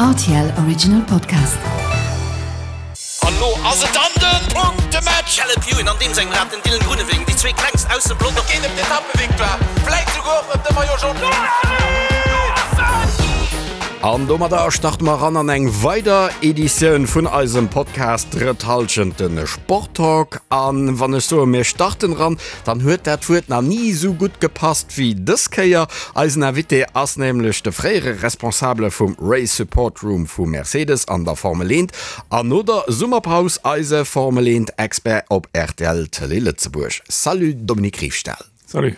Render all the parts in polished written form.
Rtl Original Podcast. An lo ass et dann den Punktematch! Caleb Ewan an deem sengem Rad den Dylan Groenewegen, déi zwee klengst aus dem Pelotong. Et geet ëm d'Etappevictoire, vläit souguer och ëm de Maillot Jaune. An domadder starte mer eran an eng weider Editioun vun eisem Podcast Drëtt Hallschent, de Sporttalk. An wann ech soe mir starten eran, dann huet dat Wuert nach ni esou gutt gepasst wéi dës Kéier. Eisen Invité ass nämlech de fréiere Responsabele vum Race Support Room vu Mercedes an der Formel 1 an no der Summerpaus eise Formel 1 Expert op rtl Tëlee Lëtzebuerg. Salut Dominique Riefstahl. Salut.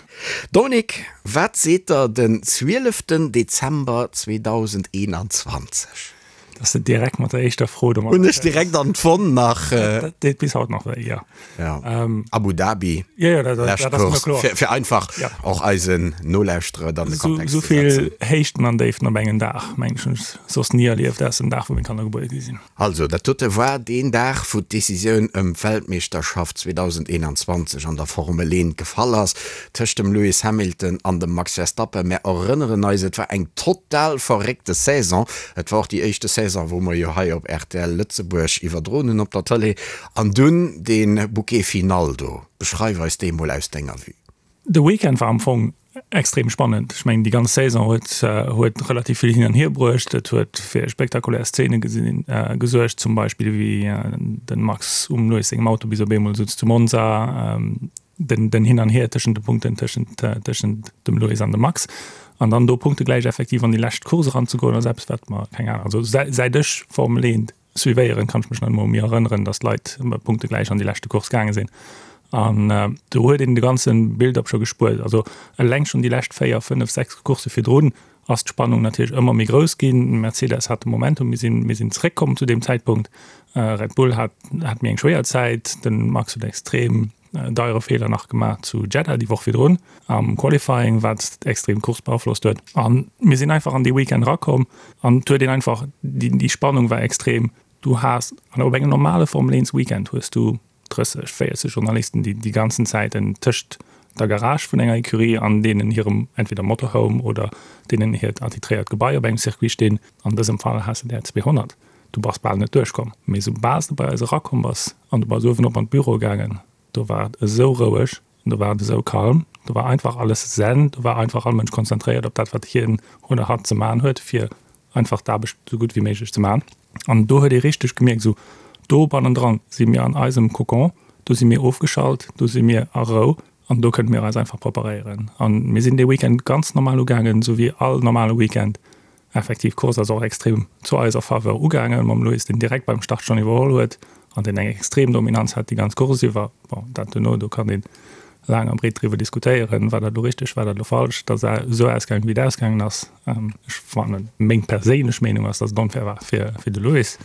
Dominique, wat seet der den 12 Dezember 2021? Dass de direkt mat der éischter Fro domat. Hunn ech direkt an d'Wonn nach. Dat deet bis haut nach wéi, jo. Ja. Abu Dhabi. Jo, jo, dat, dat ass mir kloer. Fir, fir einfach ja. och eisen Nolauschterer dann de Kontext ze setzen. Sou vill Héichten an Déiften op engem Dag, meng ech, hunn ech soss ni erlieft, ausser dem Dag, wou meng Kanner gebuer gi sinn. Also, dat dote war deen Dag, wou d'Decisioun ëm d'Weltmeeschterschaft 2021 an der Formel 1 gefall ass, tëscht dem Lewis Hamilton an dem Max Verstappen. Mär erënneren eis, et war eng total verréckte Saison. Et war och déi éischte Saison, wou mer jo hei op rtl Lëtzebuerg iwwerdroen hunn op der Tëlee. An dunn dee Bouquet final do. Beschreif eis dee mol aus denger Vue. De Weekend war am Fong extrem spannend. Ech mengen déi ganz Saison huet huet relativ vill hin an hier bruecht. Et huet fir spektakulär Szene gesinn gesuergt, zum Beispill wéi den Max um Lewis sengem Auto bis op eemol sutz zu Monza, den den Hin an Hier tëschent de Punkten tëschent tëschent dem Lewis an dem Max. An dann do punktegläich effektiv an déi lescht Course eranzegoen ass eppes wat mer, keng Ahnung, also säit ech Formel 1 Suivéieren, kann ech mech nach emol méi erënneren, dass d'Leit punktegläich an déi leschte Course gaange sinn. An do huet een de ganze Build-up scho gespuert. Also eleng schonn déi lescht 4, 5, 6 Coursse virdrun ass d'Spannung natierlech ëmmer méi grouss ginn. Mercedes hat de Momentum, mir sinn, mir sinn zeréckkomm zu deem Zäitpunkt. Red Bull hat, hat méi eng schwéier Zäit. De Max huet extrem deiere Feeler nach gemaach zu Jeddah déi Woch virdrun am Qualifying, wat extrem d'Course beaflosst huet. A mir sinn einfach an dee Weekend erakomm an et huet een einfach, déi Spannung war extrem. Du has an op engem normale Formel 1 Weekend hues du 30, 40 Journalisten, déi déi ganzen Zäiten tëscht der Garage vun enger Ecurie an deenen hirem entweder Motorhome oder deenen hiert attitréiert Gebai op engem Circuit stinn. An dësem Fall has de der 200. Du bass bal net duerchkomm. Mee soubal s de bei eis erakomm bass an du bass uewen op an d'Büro gaangen, do war et esou roueg, do war et esou calm, do war einfach alles zen, do war einfach all Mënsch konzentréiert op dat, wat hien oder hatt ze maachen huet, fir einfach d'Aarbecht esou gutt wéi méiglech ze maachen. An do huet ee richteg gemierkt, esou do bannendran si mir an eisem Kokon, do si mir ofgeschalt, do si mir a Rou an do kënne mir eis einfach preparéieren. A mir sinn dee Weekend ganz normal ugaangen, esou wéi all normale Weekend. Effektiv, d'Course ass och extrem zu eiser Faveur ugaangen, mam Lewis, deen direkt beim Start schonn iwwerholl huet an deen eng extrem Dominanz hat déi ganz Course iwwer. Bon, dat duerno, do kann ee laang a breet driwwer diskutéieren, war dat elo richteg, war dat elo falsch, datt et esou ausgaangen, wéi et ausgaangen ass. Ech fannen, meng perséinlech Meenung ass, datt et onfair war fir de Lewis.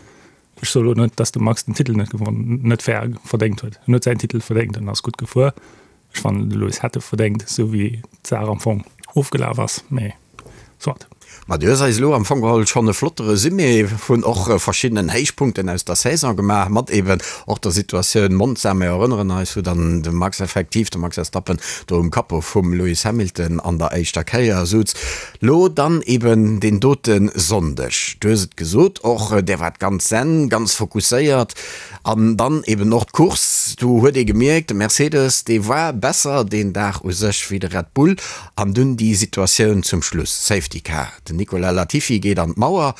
Ech soe lo net, datt de Max den Titel net gewonn, net fair verdéngt huet. En huet säin Titel verdéngt, en ass gutt gefuer. Ech fannen, de Lewis hätt e verdéngt, esou wéi d'Saach am Fong ofgelaf ass, mee soit. Ma du hues eis elo am Fong geholl schonn e flotte Resumé vun och verschiddenen Héichpunkten aus der Saison gemaach, mat eben och der Situatioun Monza. Mir erënneren eis, wou dann de Max effektiv, de Max Verstappen, do um Capot vum Lewis Hamilton an der éischter Kéier souz. Lo dann eben deen dote Sonndeg, du hues et gesot, och där waart ganz zen, ganz fokusséiert an dann eben och d'Course, do huet ee gemierkt, de Mercedes, dee war besser deen Dag u sech wéi de Red Bull an dunn déi Situatioun zum Schluss, Safety Car, den Nicolas Latifi geet an d'Mauer.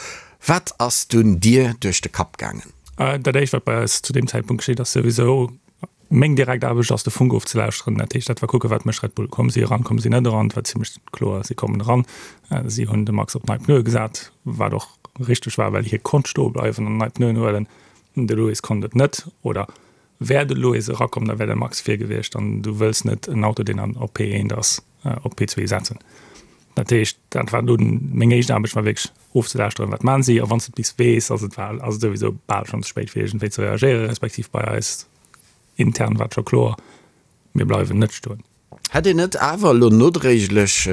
Wat ass dunn dir duerch de Kapp gaangen? Dat éischt wat bei eis zu deem Zäitpunkt geschitt ass souwisou, Meng direkt Aarbecht ass de Funk ofzelauschteren. Dat heescht, dat war kucken, wat mécht Red Bull? Komme si eran, komme si net eran? Et war zimmlech kloer, si kommen eran. Si hunn de Max op nei Pneue gesat, wat och richteg war, well hie konnt stoe bleiwen an nei Pneuen huelen. De Lewis konnt et net. Oder wär de Lewis erakomm, da wär de Max vir gewiescht an du wëlls net en Auto, deen an op P1 ass, op P2 setzen. Dat heescht, dat war dunn meng éischt Aarbecht, war wierklech ofzelauschteren, wat maachen si. A wann s de et bis weess, ass et ass et souwisou bal schonn ze spéit, fir iergendwéi ze reagéieren, respektiv bei eis Intern war et scho kloer, mir bleiwen net stoen. Hätt een net awer elo nodréiglech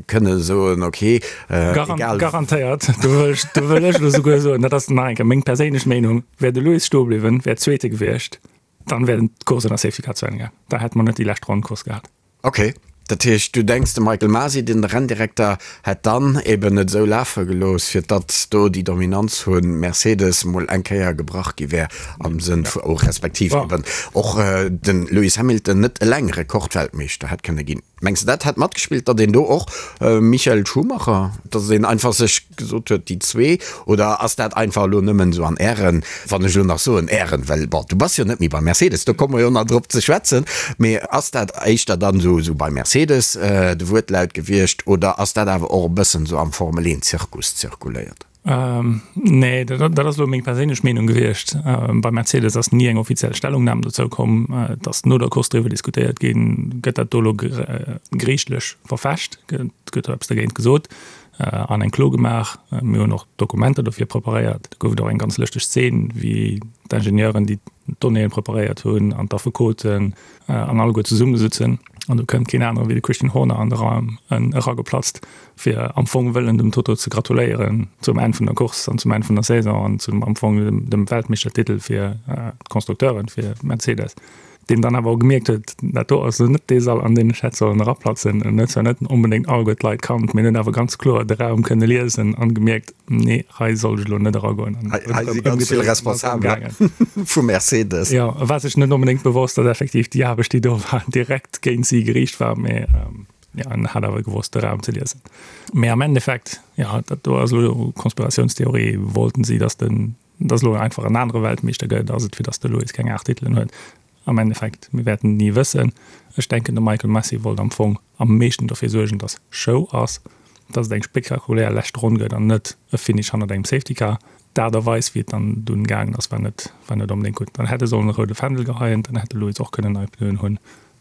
kënne soen, ok, egal. Garantéiert, do wëll ech, do wëll ech elo souguer soen, dat ass nach eng Kéier meng perséinlech Meenung, wär de Lewis stoe bliwwen, wär Zweete gewiescht, dann wär d'Course ënner Safety Car zu Enn gaang. Da hätte mer net déi lescht Ronn Course gehat. Ok. Dat heescht, du denks, de Michael Masi, den Renndirekter, hätt dann eben et esou lafe gelooss, fir datt do déi Dominanz vu Mercedes mol eng Kéier gebrach gi wär am Sënn vu, respektiv eben och de Lewis Hamilton net eleng Rekordweltmeeschter hätt kënne ginn. Mengs de dat hätt matgespillt, datt een do och Michael Schumacher, datt een einfach sech gesot huet, déi zwee, oder ass dat einfach elo nëmmen esou an Ären, wann ech elo nach soen Ären, well bon, du bass jo net méi bei Mercedes, do komme mer jo nach drop ze schwätzen, mee ass dat éischter dann esou esou bei Mercedes de Wuertlaut gewiescht oder ass dat awer och e bëssen esou am Formel-Een-Zirkus zirkuléiert? Nee, dat ass elo meng perséinlech Meenung gewiescht. Bei Mercedes ass ni eng offiziell Stellungnam dozou komm. Et ass no der Course driwwer diskutéiert ginn, gëtt dat do elo geriichtlech verfecht, gëtt do eppes dergéint gesot an eng Klo gemaach. Mir hunn och Dokumenter dofir preparéiert. Do gouf et och eng ganz lëschteg Zeen, wéi d'Ingenieuren, déi d'Donnéeë preparéiert hunn, an d'Affekoten an alleguer zesummesëtzen an do kënnt keen anere wéi de Christian Horner an de Raum erageplatzt. fir am Fong wëllen dem Toto ze gratuléieren zum Enn vun der Course an zum Enn vun der Saison an zum am Fong dem, dem Weltmeeschtertitel fir äh, d'Konstrukteuren, fir Mercedes, deen dann awer och gemierkt huet, dat do ass net dee Sall, an deen ech hätt sollen eraplatzen. En huet zwar net onbedéngt alleguer d'Leit kannt, mee en huet awer ganz kloer de Raum kënne liesen an gemierkt, nee, hei sollt ech elo net eragoen. An Hei, hei si ganz vill Responsabeler vu Mercedes. Jo, e war sech net onbedéngt bewosst, datt effektiv déi Aarbecht, déi do war, direkt géint si geriicht war, mee ähm, Ja, en hat awer gewosst de Raum ze liesen. Mee am Endeffekt, ja, dat do ass elo Konspiratiounstheorie, wollten si, datt den, datt elo einfach en anere Weltmeeschter gëtt, ass et fir datt de Lewis keng 8 Titelen huet. Am Endeffekt, mir wäerten et ni wëssen. Ech denken, de Michael Masi wollt am Fong am meeschten dofir suergen, datt Show ass, datt et eng spektakulär lescht Ronn gëtt an net e Finish hannert engem Safety Car. D'Aart a Weis, wéi et dann dunn gaangen ass, war net, war net onbedéngt gutt. Dann hätt e sollen e roude Fändel geheien, dann hätt de Lewis och kënnen nei Pneuen hunn,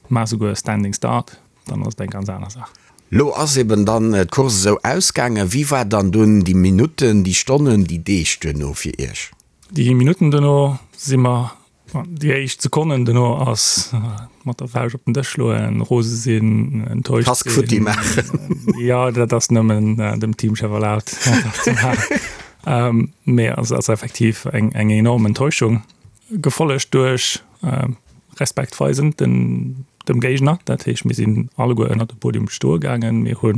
mä esouguer e Standing Start. Dann ass et eng ganz aner Saach. Lo ass eben dann d'Course esou ausgaangen. Wéi war dann dunn déi Minutten, déi Stonnen, déi Deeg duerno fir Iech? Déi Minutten duerno si mer, déi éischt Sekonnen duerno ass mat der Fauscht op den Dësch schloen, rose sinn, enttäuscht sinn. Kask futti maachen. Jo, dat ass nëmmen dem Teamchef erlaabt, dat ze maachen. Mee et ass effektiv eng enorm Enttäuschung, gefollegt duerch Respekt weisen den dem Géigner. Dat heescht, mir sinn alleguer ënnert de Podium stoe gaangen. Mir hu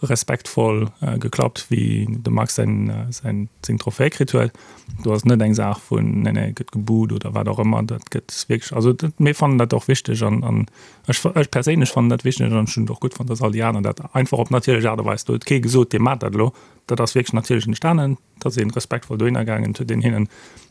respektvoll geklappt, wéi de Max säin säin seng Trophäe kritt huet. Do ass net eng Saach vun nee nee gëtt gebuht oder wat och ëmmer. Dat gëtt wierklech, also dat mir fannen dat och wichteg an an ech ech perséinlech fannen dat wichteg an ech hunn et och gutt fonnt, datt all déi aner dat einfach op natierlech Aart a Weis, do huet kee gesot, dir maacht dat elo. Dat ass wierklech natierlech entstanen. Et ass ee respektvoll dohinner gaangen, et huet een hinnen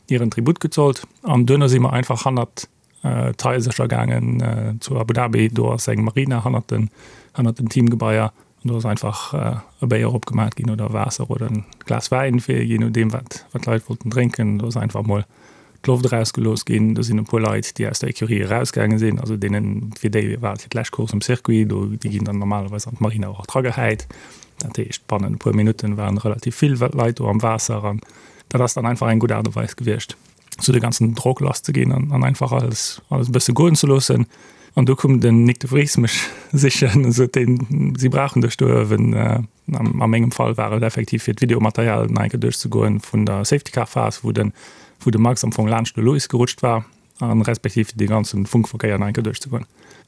hiren Tribut gezollt an duerno si mer einfach hannert d'Haisercher gaangen zu Abu Dhabi. Do ass eng Marina hannert den, hannert den Teamgebaier an do ass einfach e Béier opgemaat ginn oder Waasser oder en Glas Wäin, fir jee nodeem wat wat d'Leit wollten drénken. Do ass einfach mol d'Loft erausgelooss ginn. Do sinn e puer Leit, déi aus der Ecurie erausgaange sinn, also deenen, fir déi war et fir d'lescht Course um Circuit, do, déi ginn dann normalerweis an d'Marina och dragehäit. Dat heescht, bannen e puer Minutten waren relativ vill Leit do am Waasser an dat ass dann einfach eng gutt Aart a Weis gewiescht, sou de ganzen Drock lass ze ginn an einfach alles, alles e bësse goen ze loossen. An du koum den Nyck de Vries mech sichen an sot deen, si brauchen dech do uewen. A mengem Fall war et effektiv fir d'Videomaterial nach eng Kéier duerchzegoen vun der Safety Car Phas, wou de wou de Max am Fong laanscht de Lewis gerutscht war an respektiv dee ganzen Funkverkéier nach eng Kéier duerchzegoen.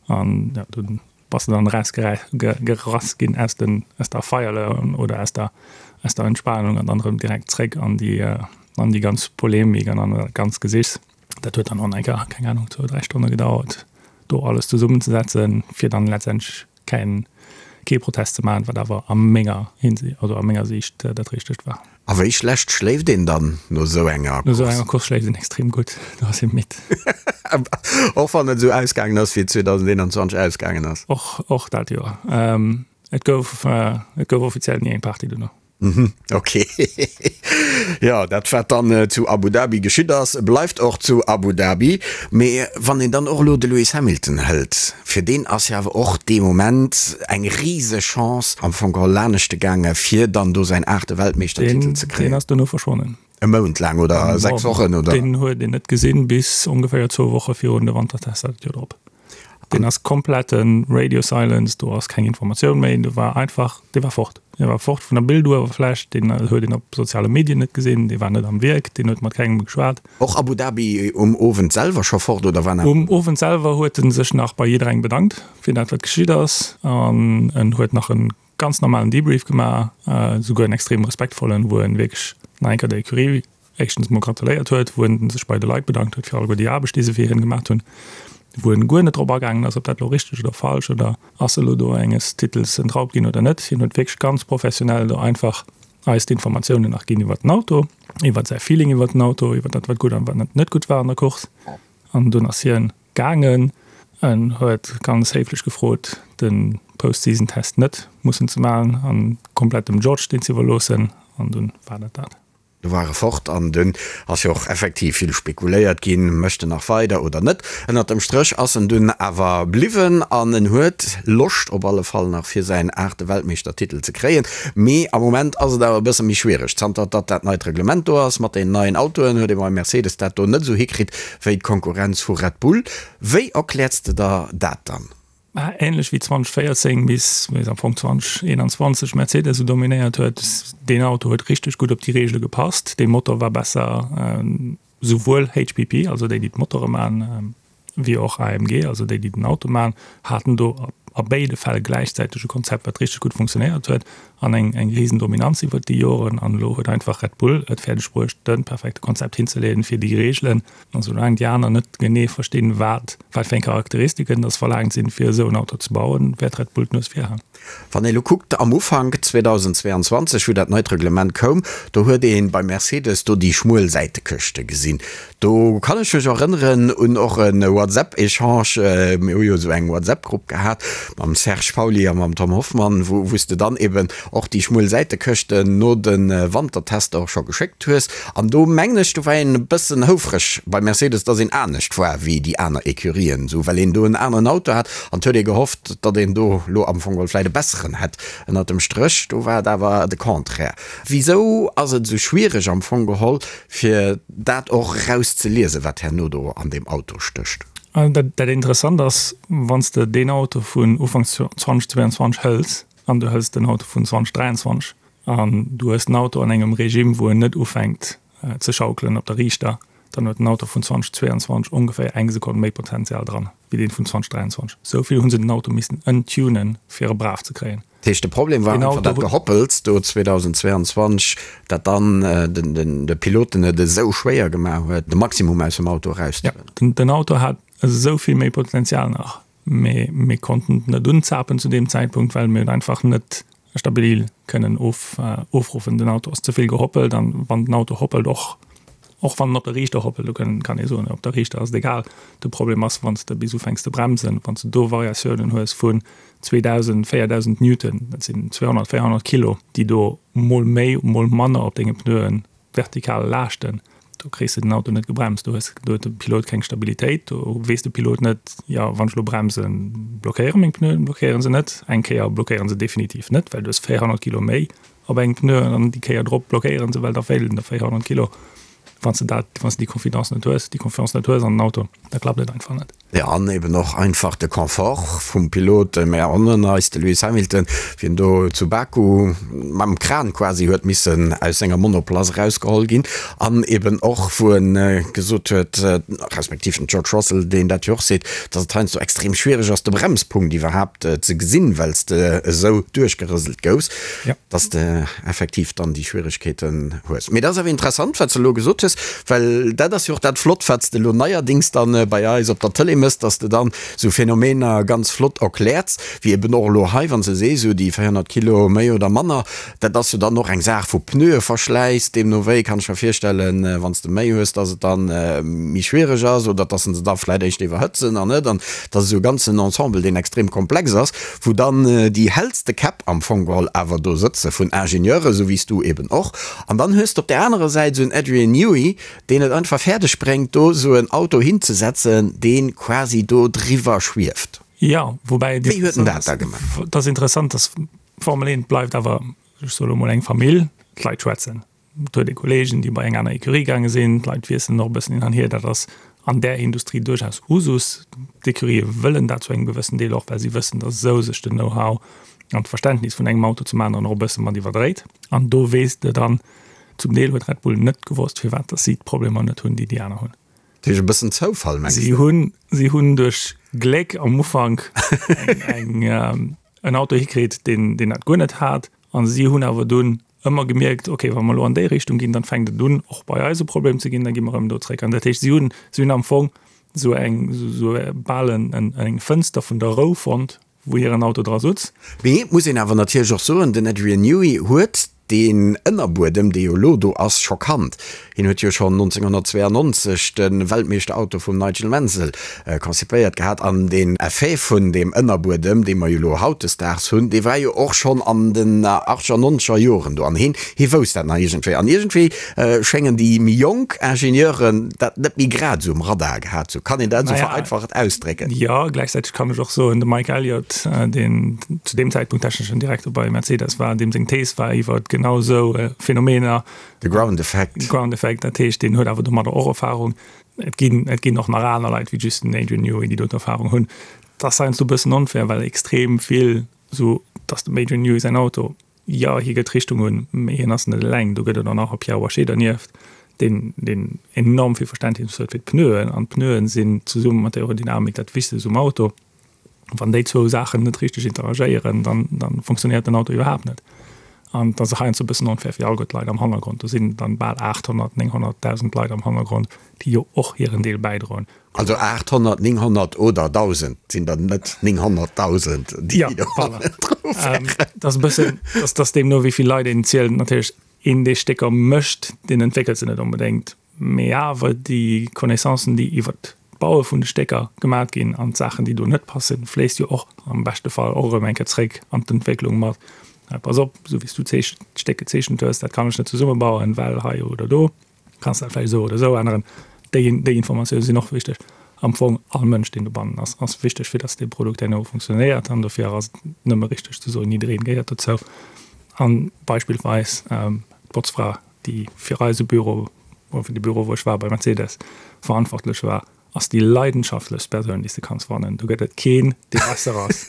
An ja, dunn bass de dann erausgerass ginn aus den aus der Feierle oder aus der aus der Entspanung an dann erëm direkt zréck an déi an déi ganz Polemik an an dat ganz Gesichs. Dat huet dann och nach eng Kéier, keng Ahnung, zwou, dräi Stonne gedauert, do alles zesummenzesetzen, fir dann letztendlech keng, kee Protest ze maachen, wat awer a menger Hinsicht, also a menger Siicht dat Richtegt war. A wéi schlecht schléift een dann no esou enger Course? No esou enger Course schléift een extrem gutt, do ass ee midd. Och wann et esou ausgaangen ass, wéi et 2021 ausgaangen ass? Och, och dat Joer. Et gouf, et gouf offiziell ni eng Party dono. Mhm, ok. Jo, dat wat dann zu Abu Dhabi geschitt ass, bleift och zu Abu Dhabi. Mee wann een dann och elo de Lewis Hamilton hëlt, fir deen ass jo awer och dee Moment eng riseg Chance am Fong geholl laneschte gaange fir dann do säin aachte Weltmeeschtertitel ze kréien. Deen ass dono verschwonnen. E Mount laang oder 6 Wochen oder? Deen huet een net gesinn bis ongeféier zwou Woche virun de Wantertester dat Joer drop. Deen ass komplette Radio Silence, do ass keng Informatioun méi, do war einfach, dee war fort. Dee war fort vun der Bilduewerfläch, deen huet een op soziale Medien net gesinn, dee war net am Wierk, deen huet mat kengem geschwat. Och Abu Dhabi um Owend selwer scho fort oder war nach? Um Owend selwer huet en sech nach bei jidderengem bedankt fir dat wat geschitt ass an en huet nach en ganz normalen Debrief gemaach, souguer en extrem respektvollen, wou en wierklech nach eng Kéier der Ecurie éischtens mol gratuléiert huet, wou en sech bei de Leit bedankt huet fir alleguer déi Aarbecht déi se fir hien gemaach hunn, wou en guer net drop agaangen ass ob dat elo richteg oder falsch oder ass elo do enges Titels entraubt ginn oder net. Hien huet wierklech ganz professionell do einfach eis d'Informatiounen nach ginn iwwert den Auto, iwwert säi Feeling iwwert den Auto, iwwert dat wat gutt an wat net gutt war an der Course. An dunn ass hien gaangen. En huet ganz héiflech gefrot de Post-Season-Test net mussen ze maachen an komplett dem George deen ze iwwerloossen. An dunn war dat dat. Du war e fort an dunn ass jo och effektiv vill spekuléiert ginn, mécht en nach weider oder net. Ënnert dem Stréch ass en dunn awer bliwwen an en huet Loscht op alle Fall nach fir säin aachte Weltmeeschtertitel ze kréien. Mee am Moment ass et awer e bësse méi schwiereg. Zanter datt dat neit Reglement do ass mat den neien Autoen, huet ee bei Mercedes dat do net esou hikritt wéi d'Konkurrenz vu Red Bull. Wéi erkläers de der dat dann? Mä änlech wéi 2014 bis am Fong 2021 Mercedes esou dominéiert huet, deen Auto huet richteg gutt op déi Reegele gepasst, dee Motor war besser, souwuel HPP, also déi déi d'Motore man, wéi och AMG, also déi déi den Auto man, haten do a béide Fäll gläichzäiteg e Konzept wat richteg gutt funktionéiert huet an eng eng risen Dominanz iwwert déi Joren. An elo huet einfach Red Bull et fäerdeg bruecht de perfekte Konzept hinzeleeën fir déi Reegelen. An soulaang déi aner net genee verstinn, wat wat fir eng Charakteristiken dass verlaangt sinn, fir esou en Auto ze bauen, wäert Red Bull d'Nues vir han. Wann ee lo kuckt, am Ufank 2022, wou dat neit Reglement koum, do huet ee bei Mercedes do déi schmuel Säitekëschte gesinn. Do kann ech mech erënneren un och e WhatsApp-Echange, mir hu jo esou eng WhatsApp-Grupp gehat mam Serge Pauly a mam Tom Hoffmann, wou wou s de dann eben och déi schmuel Säitekëschten no de Wantertester och scho geschéckt hues. An do mengen ech, do war een e bëssen houfreg bei Mercedes, dass een anescht war wéi déi aner Ecurien, esou well een do en aneren Auto hat an et huet ee gehofft, datt een do elo am Fong geholl vläicht e besseren hätt. Ënnert dem Stréch, do war et awer de Contraire. Wisou ass et esou schwiereg am Fong geholl, fir dat och erauszeliesen, wat herno do an deem Auto stécht? Dat Interessant ass, wann s de deen Auto vun Ufank 2022 hëls an du hëls den Auto vun 2023, An du hues den Auto an engem Regime, wou en net ufänkt ze schaukelen op der Riichter, dann huet den Auto vun 2022 ongeféier eng Sekonn méi Potenzial dran, wéi deen vun 2023. Esou vill hu se den Auto missen ëntunen, fir e brav ze kréien. Dat heescht, de Problem war einfach dat Gehoppels do 2022, dat dann de Piloten et esou schwéier gemaach huet, de Maximum aus dem Auto erauszehuelen. Jo, den Auto hat esou vill méi Potenzial nach, mee mir konnten et net unzapen zu deem Zäitpunkt, well mir et einfach net stabil kënnen ofruffen. Den Auto ass ze vill gehoppelt an wann den Auto hoppelt, och och wann en op der Riichter hoppelt, do kann kann ee soen, op der Riichter ass et egal. De Problem ass, wann s de bis ufänks ze bremsen, wann s de do Variatiounen hues vun 2.000, 4.000 Newton, dat sinn 200, 400 Kilo, déi do mol méi, mol manner op denge Pneuen vertikal laaschten, do kriss de den Auto net gebremst, do hues do huet de Pilot keng Stabilitéit, do weess de Pilot net, jo wann ech elo bremsen, blockéiere meng Pneuen, blockéiere se net. Eng Kéier blockéiere se definitiv net, well du hues 400 Kilo méi op engem Pneu an déi Kéier drop blockéiere se, well da feelen der 400 Kilo. Wann s de dat, wann s de déi Confidence net hues, déi Confiance net hues an den Auto, da klappt et einfach net. Jo, an eben och einfach de Confort vum Pilot. Mir erënneren eis, de Lewis Hamilton, wéi en do zu Baku mam Kran quasi huet missen aus senger Monoplace erausgeholl ginn. An eben och, wou e gesot huet, respektiv den George Russell, deen dat jo och seet, datt et heiansdo extrem schwiereg ass, de Bremspunkt iwwerhaapt ze gesinn, well s de esou duerchgerëselt goufs. Dass de effektiv dann déi Schwieregkeeten hues. Mee dat ass awer interessant, wat s de elo gesot hues, well dat ass jo och dat Flott, wat s de elo neierdings dann bei eis op der Tëlee mëss, dass de dann esou Phänomener ganz flott erkläerts, wéi eben och elo hei, wann s de sees, esou déi 400 Kilo méi oder manner, dat ass jo dann och eng Saach vu Pneueverschläiss. Deemno wéi kann ech mer virstellen, wann s de méi hues, dass et dann méi schwiereg ass oder dass se da vläicht éischter iwwerhëtzen an net. An dat ass esou e ganzen Ensemble, deen extrem komplex ass. wou dann déi hellste Käpp am Fong geholl awer do sëtze vun Ingenieuren, esou wéi s du eben och, an dann hues de op där anerer Säit esou en Adrian Newey, deen et einfach fäerdeg bréngt, do esou en Auto hinzesetzen, dee quasi do driwwer schwieft. Jo, woubäi et Wéi huet en dat da gemaach? Et ass interessant, dass d'Formel 1 bleift awer, ech soe lo mol, eng Famill, d'Leit schwätzen. Et huet ee Kolleegen, déi bei eng aner Ecurie gaange sinn. D'Leit wiesselen och e bëssen hin an hier. Dat ass. An där Industrie duerchaus Usus. D'Ecurië wëllen dat zu engem gewëssen Deel och, well si wëssen, datt esou sech den Know-how an d'Verständnis vun engem Auto zum aneren och e bësse mat iwwerdréit. An do weess de dann, zum Deel huet Red Bull net gewosst, firwat datt si d'Problemer net hunn, déi déi aner hunn. Dat heescht e bëssen Zoufall, mengs de? Si hunn, si hunn duerch Gléck am Ufank eng, eng, en Auto hikritt, deen, deen dat guer net hat. A si hunn awer dunn ëmmer gemierkt, okay, wa mer elo an déi Richtung ginn, dann fänkt et un, och bei eis e Problem ze ginn, da gi mer erëm do zréck. An dat heescht, si hunn, si hunn am Fong esou eng, esou bal en, en, eng Fënster vun der Rou fonnt, wou hiren Auto dra sutz. Mee et muss een awer natierlech och soen, den Adrian Newey huet deen Ënnerbuedem, dee jo elo do ass, scho kannt. Hien huet jo schonn 1992 de Weltmeeschterauto vum Nigel Mansell konzipéiert gehat an deen Effet vun deem Ënnerbuedem, dee mer jo elo hautdesdaags hunn, dee war jo och schonn an den achtzeger, nonzeger Joren do an hien, hie wousst dat nach iergendwéi. An iergendwéi schéngen déi méi jonk Ingenieuren dat net méi grad esou um Radar gehat ze hunn. Kann een dat esou vereinfacht ausdrécken? Jo, gläichzäiteg kann ech och soen, de Mike Elliott, deen zu deem Zäitpunkt techneschen Direkter bei Mercedes war, deem seng Thees war iwwer genau esou Phänomener, De Ground Effect. Ground Effect, dat heescht, deen huet awer domadder och Erfahrung. Et ginn, et ginn och nach aner Leit wéi just den Adrian Newey, déi do Erfahrung hunn. Dat ass heiansdo e bëssen onfair, well extrem vill esou, dass dem Adrian Newey säin Auto, jo, hie gëtt d'Richtung un, mee hien ass net eleng. Do gëtt et och nach e Pierre Waché dernieft, deen, deen enorm vill Verständnis huet fir d'Pneuen. An d'Pneuen sinn zesumme mat der Aerodynamik dat Wichtegst um Auto. Wann déi zwou Saachen net richteg interagéieren, dann, dann funktionéiert den Auto iwwerhaapt net. An dat ass heiansdo e bëssen onfair fir alleguer d'Leit am Hannergrond. Do sinn dann bal 800, 900.000 Leit am Hannergrond, déi jo och hiren Deel bäidroen. Also 800, 900 oder 1.000 sinn dann net 900.000, déi do hannendru wären. Dat ass e bëssen, dat ass deemno wéi vill Leit een zielt. Natierlech, een dee Stécker mécht, deen entwéckelt se net onbedéngt. Mee awer déi Connaissancen, déi iwwert d'Baue vun de Stécker gemat ginn an d'Saachen, déi do net passen, fléisst jo och am beschte Fall och erëm eng Kéier zréck an d'Entwécklung mat. Pass op, esou wéi s du d'Stéck gezeechent hues, dat kann ech net zesummebauen, well hei oder do. Kanns dat vläicht esou oder esou änneren. Déi, déi Informatioune sinn och wichteg. Am Fong all Mënsch, deen dobannen ass, ass wichteg, fir datt dee Produkt herno funktionéiert. An dofir ass et nëmme richteg ze soen, jiddereen gehéiert dozou. A beispillsweis d'Botzfra déi fir eise Büro, oder fir de Büro wou ech war bei Mercedes, verantwortlech war, ass déi leidenschaftlechst Persoun déi s de kanns fannen. Do gëtt et keen dee besser ass.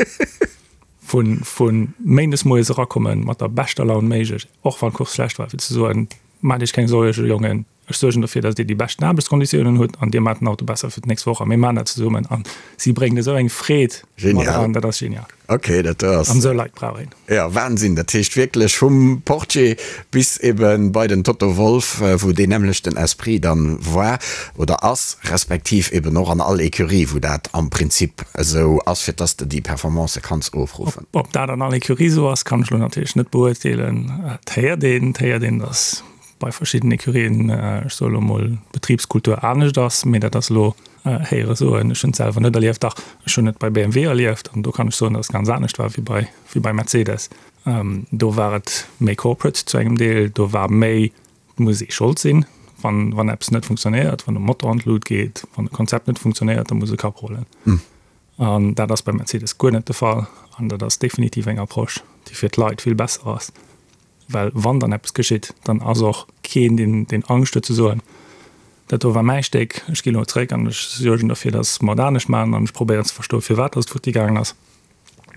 Vu vu méindes moies erakommen mat der beschter Laun méiglech, och wann d'Course schlecht war, fir ze soen, maacht iech keng Suerge Jongen, ech suergen dofir, datt dir déi beschten Aarbechtskonditiounen hutt an dir maacht den Auto besser fir d'nächst Woch a mir maachen dat zesummen. An si bréngt esou eng Freed mat eran, dat ass genial. Ok, dat do ass. An esou Leit brauch een. Jo, Wahnsinn. Dat heescht wierklech vum Portier bis eben bei den Toto Wolff, wou deen nämmlechten Esprit dann war oder ass, respektiv eben och an all Ecurie, wou dat am Prinzip esou ass, fir dass de déi Performancë kanns ofruffen. Ob dat an all Ecurie esou ass, kann ech elo natierlech net beurteelen. Et héiert een, et héiert een, dass bei verschiddenen Ecurien, ech soe lo mol, d'Betribskultur anescht ass, mee dat ass elo héiere soen. Ech hunn et selwer net erlieft. Dach, ech hunn et bei BMW erlieft an do kann ech soen, datt et ganz anescht war wéi bei, wéi bei Mercedes. Do war et méi corporate zu engem Deel, do war méi, et muss ee Schold sinn, wann, wann eppes net funktionéiert, wann de Motor an d'Lut geet, wann e Konzept net funktionéiert, da muss e Kapp rullen. An dat ass bei Mercedes guer net de Fall an dat ass definitiv eng Approche, déi fir d'Leit vill besser ass. Well wann dann eppes geschitt, dann ass och keen, deen, deen Angscht huet ze soen, dat do war mäi Stéck, ech ginn elo zréck an ech suergen derfir, datt mer et anescht maachen an ech probéieren ze verstoen, firwat datt et futti gaangen ass.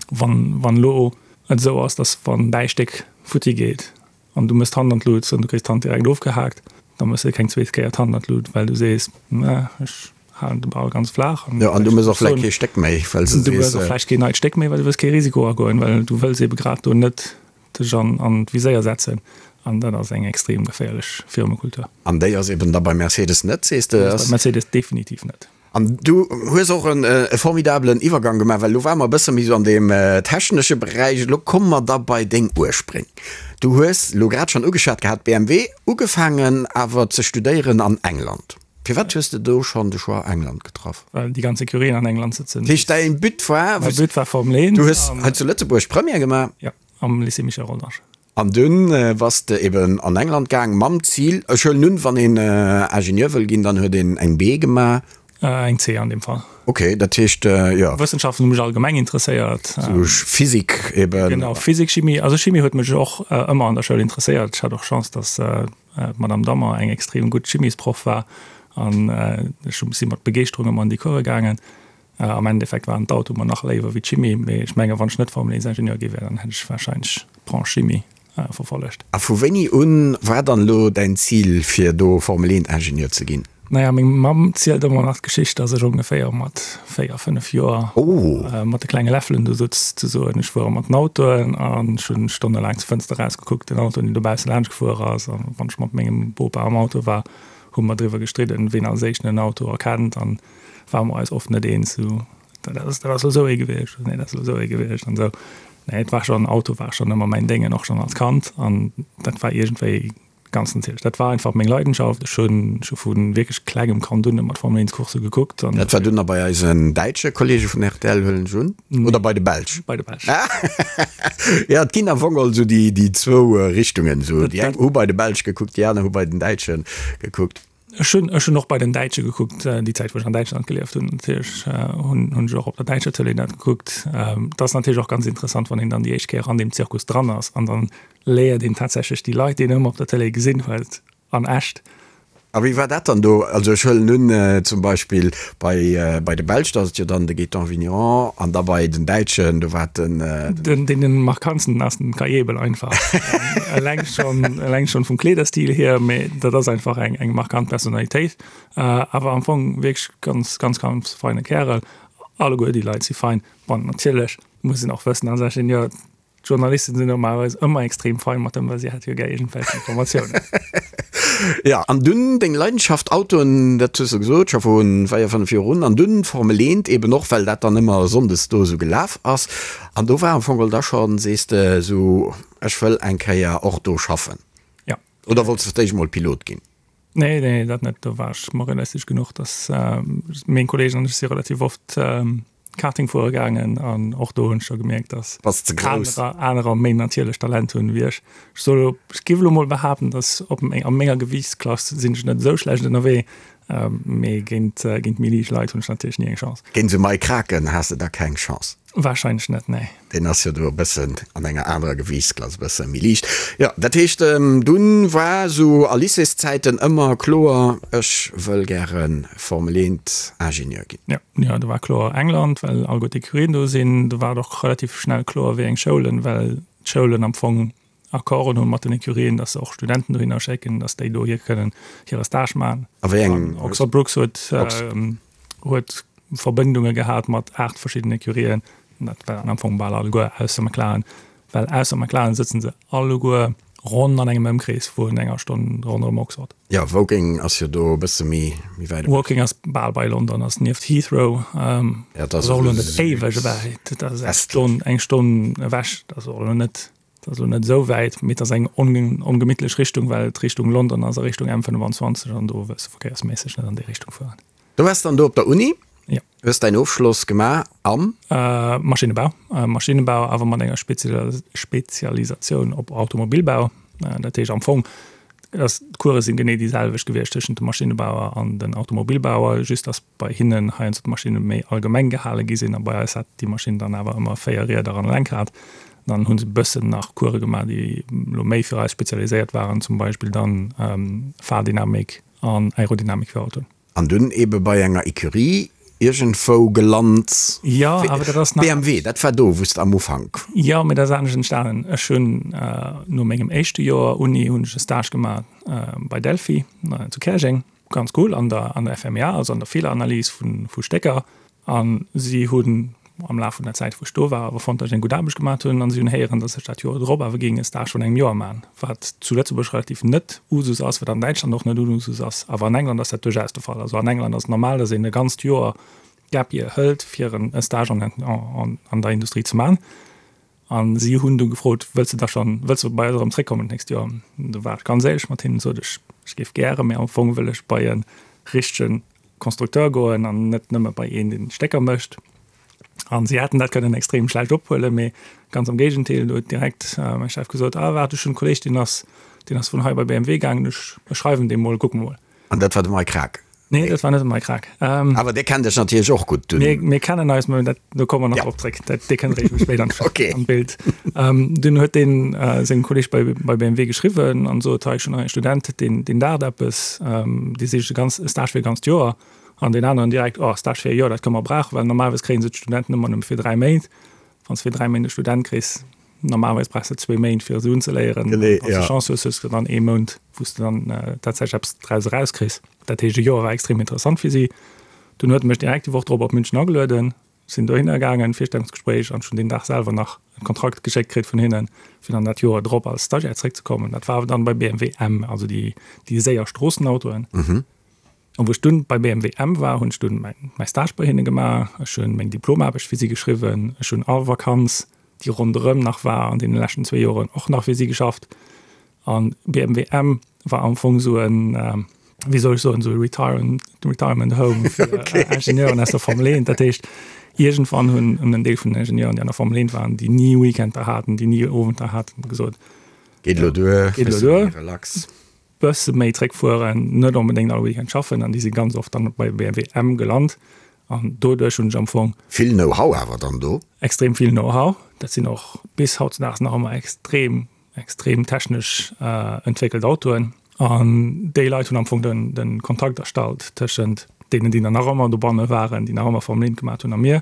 Wann, wann elo et esou ass, datt wann däi Stéck futti geet an du méchs d'Hand an d'Lut an du kriss d'Hand direkt ofgehaakt, da méchs de keng zweet Kéier d'Hand an d'Lut, well du sees, mä ech halen de Ball ganz flaach. Jo, an du méchs och vläicht kee Stéck méi, well s de sees. Du méchs och vläicht keen neit Stéck méi, well du wëlls kee Risiko agoen, well du wëlls eebe grad do net dech an an d'Viséier setzen an dat ass eng extrem geféierlech Firmekultur. An déi ass eben da bei Mercedes net, sees de? Déi ass bei Mercedes definitiv net. An du hues och e formidabelen Iwwergang gemaach, well elo ware mer e bësse méi esou an deem technesche Beräich. Elo komme mer da bei deng Urspréng. Du hues elo grad schonn ugeschwat gehat, BMW, ugefaangen awer ze studéieren an England. Firwat hues de do schonn de Choix England getraff? Well déi ganz Ecurien an England sëtzen. Dat heescht, däin But war. Mäi But war Formel 1. Du hues hei zu Lëtzebuerg Première gemaach. Jo. Am Lycée Michel Rodange. An dunn bass de eben an England gaang mam Zil, ech huelen un, wann een Ingenieur wëll ginn, dann huet een eng B gemaach. Eng C an deem Fall. Ok, dat heescht, jo. Wëssenschaften hu mech allgemeng interesséiert. Sou Physik eben. Genau, Physik, Chimie. Also Chimie huet mech och ëmmer an der Schoul interesséiert. Ech hat och Chance, dass d'Madame Dammer eng extrem gutt Chimiesproff war. An ech si mat Begeeschterung ëmmer an déi Course gaangen. Am Endeffekt waren d'Autoe mer nach léiwer wéi d'Chimie, mee ech menge wann ech net Formel 1 Ingenieur gi wär, dann hätt ech warscheinlech d'Branche Chimie verfollegt. A vu wéini un war dann elo däin Zil fir do Formel 1 Ingenieur ze ginn? Naja, meng Mamm zielt ëmmer nach d'Geschicht, dass ech ongeféier mat 4, 5 Joer mat de klenge Läffelen do sutz ze soen. Ech fuere mat den Autoen an ech hunn stonnelaang zur Fënster erausgekuckt, den Autoen, deen dobausse laanscht gefuer ass. A wann ech mat mengem Bopa am Auto war, hu mer driwwer gestridden, ween als éischten en Auto erkennt an ware mer eis oft net eens, sou, dat ass, dat ass elo sou ee gewiescht, nee, dat ass elo sou ee gewiescht an esou. Nee, et war schonn, Auto war schonn ëmmer mäin Déngen, och schonn als Kand an dat war iergendwéi ganz natierlech. Dat war einfach meng Leidenschaft. Ech hunn scho vu wierklech klengem Kand un ëmmer d'Formel 1 Coursse gekuckt an. Dat war dunn nach bei eisen däitsche Kollege vun rtl, huelen ech un, oder bei de Belsch? Bei de Belsch. Jo, et ginn am Fong geholl esou déi, déi zwou Richtungen, esou déi eng hu bei de Belsch gekuckt, déi aner hu bei den Däitsche gekuckt. Ech hunn, ech hunn och bei den Däitsche gekuckt, déi Zäit wou ech an Däitschland gelieft hunn natierlech hunn, hunn ech och op der däitscher Tëlee dat gekuckt. Et ass natierlech och ganz interessant, wann een dann déi éischt Kéier an deem Zirkus dran ass an dann léiert een tatsächlech déi Leit, déi een ëmmer op der Tëlee gesinn huet, an echt. A wéi war dat dann do? Also ech huelen un, zum Beispill bei, bei de Belsch, da ass et jo dann de Gaétan Vigneron an da bei den Däitschen, do war et den. Den, deen den markantsten ass den Kai Ebel einfach. Eleng schonn, eleng schonn vum Kleederstil hier, mee dat ass einfach eng, eng markant Personalitéit. Awer am Fong wierklech ganz, ganz, ganz feine Kärel. Alleguer déi Leit si fein. Bon, natierlech muss een och wëssen als Ingenieur, D'Journalisten sinn normalerweis ëmmer extrem fein mat dem, well si hat jo gär iergendwelch Informatiounen. Jo, an dunn deng Leidenschaft Autoen, dat hues de gesot, scho vu 4, 5 Joer un, an dunn Formel 1 eben och, well dat dann ëmmer sonndes do esou gelaf ass. An do war am Fong geholl da schonn, sees de, esou, ech wëll eng Kéier och do schaffen. Jo. Oder wollts de fir d'éischt mol Pilot ginn? Nee, nee, dat net. Do war ech mer realistesch genuch, dass meng Kolleegen an ech si relativ oft Karting fuere gaangen an och do hunn ech scho gemierkt, dass Bass ze grouss. anerer, anerer méi natierlech Talent hunn wéi ech. Ech soll elo, ech géif elo mol behaapten, dass op meng, a menger Gewiichtsklass sinn ech net esou schlecht ënnerwee, mee géint, géint méi liicht Leit hunn ech natierlech ni eng Chance. Géint esou Mike Kraken has de da keng Chance. Wahrscheinlech net, nee. Deen ass jo do e bëssen an enger anerer Gewiichtsklass, e bësse méi liicht. Jo, dat heescht, dunn war esou a Lycéeszäiten ëmmer kloer, ech wëll gäre Formel 1 Ingenieur ginn. Jo, jo, do war kloer England, well alleguer d'Ecurien do sinn. Do war et och relativ schnell kloer, wéi eng Schoulen, well d'Schoulen am Fong Accorden hunn mat den Ecurien, dass se och Studenten dohinner schécken, dass déi dohier kënnen hire Stage maachen. A wéi eng? Oxford Brookes huet, huet Verbindunge gehat mat 8 verschiddenen Ecurien. Dat waren am Fong bal alleguer ausser McLaren, well ausser McLaren sëtzen se alleguer ronn an engem Ëmkrees vun enger Stonn ronderëm Oxford. Jo, Woking ass jo do e bësse méi méi wäit ewech. Woking ass bal bei London, ass nieft Heathrow. Ja, dat ass och elo net éiweg ewech, dat ass eng Stonn, eng Stonn ewech, dat ass och elo net, dat ass elo net esou wäit, mee et ass eng ongemittlech Richtung, well et Richtung London ass a Richtung M25 an do wëlls de verkéiersméisseg net an déi Richtung fueren. Du waars dann do op der Uni, Ja. hues däin Ofschloss gemaach am? Maschinnebau, Maschinnebau awer mat enger Spezialisatioun op Automobilbau. Dat heescht am Fong, dass d'Course sinn genee déi selwecht gewiescht tëschent dem Maschinnebauer an den Automobilbauer, just dass bei hinnen heiansdo d'Maschinne méi allgemeng gehale gi sinn a bei eis hat déi Maschinn dann awer ëmmer 4 Rieder an e Lenkrad. Dann hu se e bëssen nach Course gemaach, déi elo méi fir eis spezialiséiert waren, zum Beispill dann Fahrdynamik an Aerodynamik fir Autoen. An dunn ebe bei enger Ecurie iergendwou gelant. Jo, awer dat ass nach. BMW, dat war do, wou s de am Ufank. Jo, mee dat ass anescht entstanen. Ech hunn no mengem éischte Joer Uni hunn ech e Stage gemaach bei Delphi zu Käerjeng. Ganz cool, an der an der FMEA, also an der Feeleranalys vu vu Stécker. A si hunn am Laf vun der Zäit, wou ech do war, awer fonnt, datt ech eng gutt Aarbecht gemaat hunn. An si hunn héieren, datt ech dat Joer drop awer géing e Stage vun engem Joer maachen, wat zu Lëtzebuerg relativ net Usus ass, wat an Däitschland och net Usus ass. Awer an England ass dat duerchaus de Fall. Also an England ass et normal, datt een e ganzt Joer Gap Year hëlt, fir e Stage an an der Industrie ze maachen. A si hunn du gefrot, Wëlls de da schonn, wëlls de bei eis erëm zréckkommen d'nächst Joer? Du war ech ganz éierlech mat hinnen, sot ech, ech géif gären, mee am Fong wëll ech bei e richtege Constructeur goen an net nëmme bei een, deen Stécker mécht. An si hätten dat kënnen extrem schlecht ophuelen, mee ganz am Géigendeel, do huet direkt mäi Chef gesot, Ah waart, ech hunn e Kolleeg, deen ass, deen ass vun hei bei BMW gaangen, ech schreiwen deem mol, kucke mol. An dat war de Mike Krack? Nee, dat war net de Mike Krack. Awer dee kennt dech natierlech och gutt dunn. Mir, mir kennen eis, mä dat, do komme mer nach drop zréck. Dat, dee kënnt eréischt méi spéit an, Okay. an d'Bild. Dunn huet deen sengem Kolleg bei, bei BMW geschriwwen an sot, hei, ech hunn nach ee Student, deen, deen daacht eppes, dee sicht e ganz, e Stage fir e ganzt Joer. An deen aneren direkt, oh, Stage fir e Joer, dat kënne mer brauchen, well normalerweis kréie se d'Studenten ëmmer nëmme fir 3 Méint. Wann s de fir 3 Méint e Student kriss, Normalerweis brauchs de zwéi Méint fir se unzeléieren. Genee, Wann s de ja. Chance hues, hues de dann ee Mount, wou s de dann tatsächlech eppes draus erauskriss. Dat heescht, e Joer war extrem interessant fir si. Dunn huet e mech direkt déi Woch drop op München agelueden, sinn dohinner gaangen, Virstellungsgespréich, an ech hunn deen Dag selwer nach e Kontrakt geschéckt kritt vun hinnen, fir dann dat Joer drop als Stagiaire zeréckzekommen. Dat war awer dann bei BMW M, also déi, déi séier Stroossenautoen. An wou ech dunn bei BMW M war, hunn ech dunn mäin mäi Stage bei hinne gemaach, ech hunn meng Diplomaarbecht fir si geschriwwen, ech hunn all Vakanz, déi ronderëm nach war an deene leschten zwéi Joren, och nach fir si geschafft. An BMW M war am Fong esou en, wéi soll ech soen, esou e Retirement, Retirement Home fir Ingenieuren aus der Formel 1. Dat heescht, iergendwann hunn en Deel vun den Ingenieuren, déi an der Formel 1 waren, déi ni Weekender haten, déi ni Owenter haten, gesot, Geet elo duer, Geet elo duer. Relax. Bësse méi zréckfueren, net onbedéngt all Weekend schaffen an déi si ganz oft dann bei BMW M gelant an doduerch hunn ech am Fong. Vill Know-how awer dann do? Extrem vill Know-how. Dat sinn och bis hautzedaags nach ëmmer extrem, extrem technesch entwéckelt Autoen an déi Leit hunn am Fong den, den Kontakt erstallt tëschent deenen, déi dann nach ëmmer dobanne waren, déi nach ëmmer Formel 1 gemaat hunn a mir.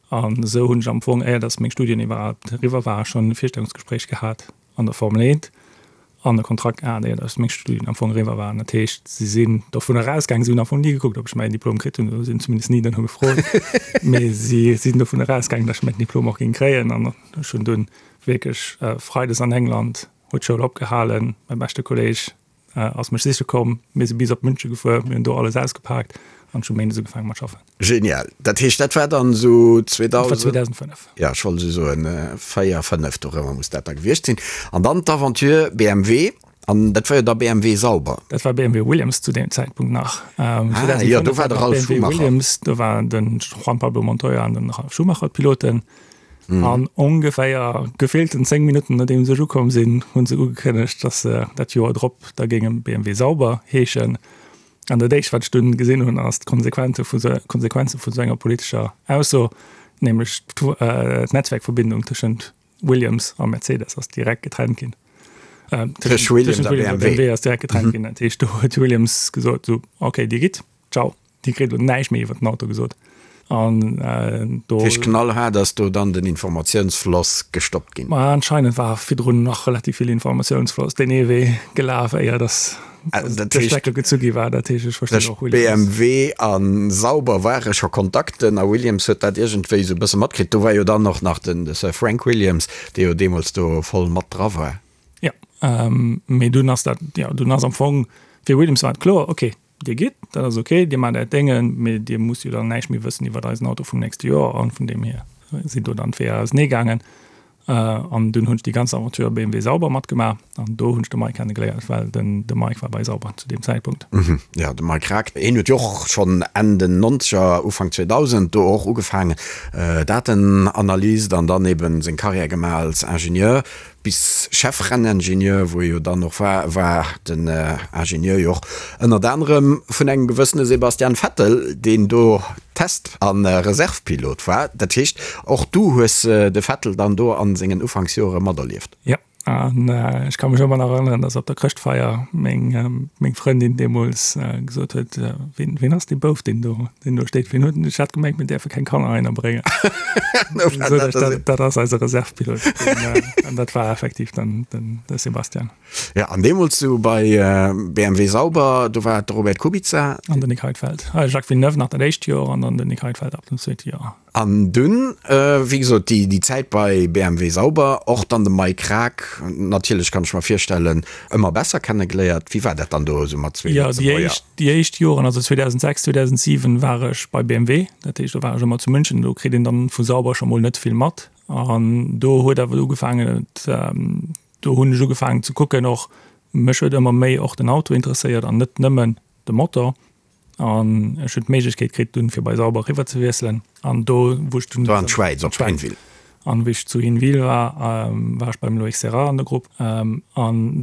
An esou hunn ech am Fong, éier datt meng Studien iwwerhaapt eriwwer waren, schonn e Virstellungsgespréich gehat an der Formel 1 an e Kontrakt gehat, éier datt meng Studien am Fong eriwwer waren. Dat heescht, si sinn dovun erausgaangen, si hunn am Fong ni gekuckt, ob ech mäin Diplom kritt hunn, oder si hunn zumindest ni duerno gefrot, mee si sinn dovun erausgaangen, datt ech mäin Diplom och géing kréien. An ech hunn dunn wierklech freides an England huet d'Schoul opgehalen, mäi beschte Kolleeg ass mech siche komm, mir si bis op München gefuer, mir hunn do alles ausgepaakt an ech hu méindes ugefaange mat schaffen. Genial. Dat heescht, dat war dann esou 2000. Dat war 2005. Jo, ech wollt esou soen, 4, 5 dorëmmer muss dat da gewiescht sinn. An dann d'Aventure BMW, an dat war jo da BMW Sauber. Dat war BMW Williams zu deem Zäitpunkt nach. Ah jo, do war de Ralf BMW Schumacher. Williams, do waren de Juan Pablo Montoya an den Ralf Schumacher d'Piloten. An ongeféier gefillten 10 Minutten nodeems ech ukomm sinn, hu se ugekënnegt, dass se dat Joer drop da géinge BMW Sauber heeschen. An dat éischt, wat ech dunn gesinn hunn, ass d'Konsequenze vu Konsequenze vu sou enger politescher Ausso, nämlech d'Netzwerkverbindung tëschent Williams a Mercedes ass direkt getrennt ginn. Tëscht Williams a BMW ass direkt getrennt ginn. Dat heescht, do huet Williams gesot, sou, okay, Dir gitt, ciao. Dir kritt elo näischt méi iwwer den Auto gesot. An do. Dat heescht, knallhaart ass do dann den Informatiounsfloss gestoppt ginn? Ma anscheinend war virdrun nach relativ vill Informatiounsfloss deen ee Wee gelaf, éier dass de Stecker gezu gi war. Dat heescht, ech verstinn och Williams. BMW a Sauber ware scho Kontakten a Williams huet dat iergendwéi esou e bësse matkritt. Do war jo dann och nach den Sir Frank Williams, dee jo deemools do voll mat dra war. Jo, mee dunn ass dat, jo, dunn ass am Fong fir Williams war et kloer, okay, Dir gitt, dat ass ok, Dir maacht Äert Déngen, mee Dir musst jo dann näischt méi wëssen iwwert eisen Auto vum nächste Joer. An vun deem hier sinn do dann d'Weeër ausenee gaangen. An dunn hunn ech déi ganz Aventure BMW Sauber matgemaach an do hunn ech de Mike kennegeléiert, well den de Mike war bei Sauber zu deem Zäitpunkt. Jo, de Mike Krack, hien huet jo och schonn Enn den Nonzeger, Ufank 2000 do och ugefaangen, Datenanalyst an dann eben seng Karriär gemaach als Ingenieur. Bis Chef-Renningenieur, wou e jo dann och war, war den Ingenieur jo och ënnert anerem vun engem gewëssene Sebastian Vettel, deen do Test a Reservepilot war. Dat heescht, och du hues de Vettel dann do a sengen Ufanksjore materlieft? Jo, an ech ka mech ëmmer nach erënneren, dass op der Chrëschtfeier meng meng Frëndin deemools gesot huet, Ween ween ass dee Bouf, deen do deen do steet? Ween huet en? Ech hat gemengt, mir däerfe keng Kanner heihinner bréngen. Dat ass eise Reservepilot. An dat war effektiv dann den de Sebastian. Ja, an deemools du bei BMW Sauber, do war et de Robert Kubica. An den Nick Heidfeld. Jacques Villeneuve nach dat éischt Joer an dann den Nick Heidfeld ab dem zweete Joer. An dunn, wéi gesot, déi déi Zäit bei BMW Sauber, och dann de Mike Krack, natierlech kann ech mer virstellen, ëmmer besser kennegeléiert. Wéi war dat dann do esou mat zwee Jo, déi éischt, déi éischt Joren, also 2006, 2007 war ech bei BMW, dat heescht do war ech ëmmer zu München, do kritt een dann vu Sauber scho mol net vill mat. An do huet awer ugefaangen, et, do hunn ech ugefaangen ze kucken och, mech huet ëmmer méi och den Auto interesséiert an net nëmmen de Motor. An ech hunn d'Méiglechkeet kritt dunn fir bei Sauber eriwwer ze wiesselen an do wou ech dunn Do an d'Schwäiz op Hinwil. An wéi ech zu Hinwil war, war ech beim Loïc Serra an der Grupp an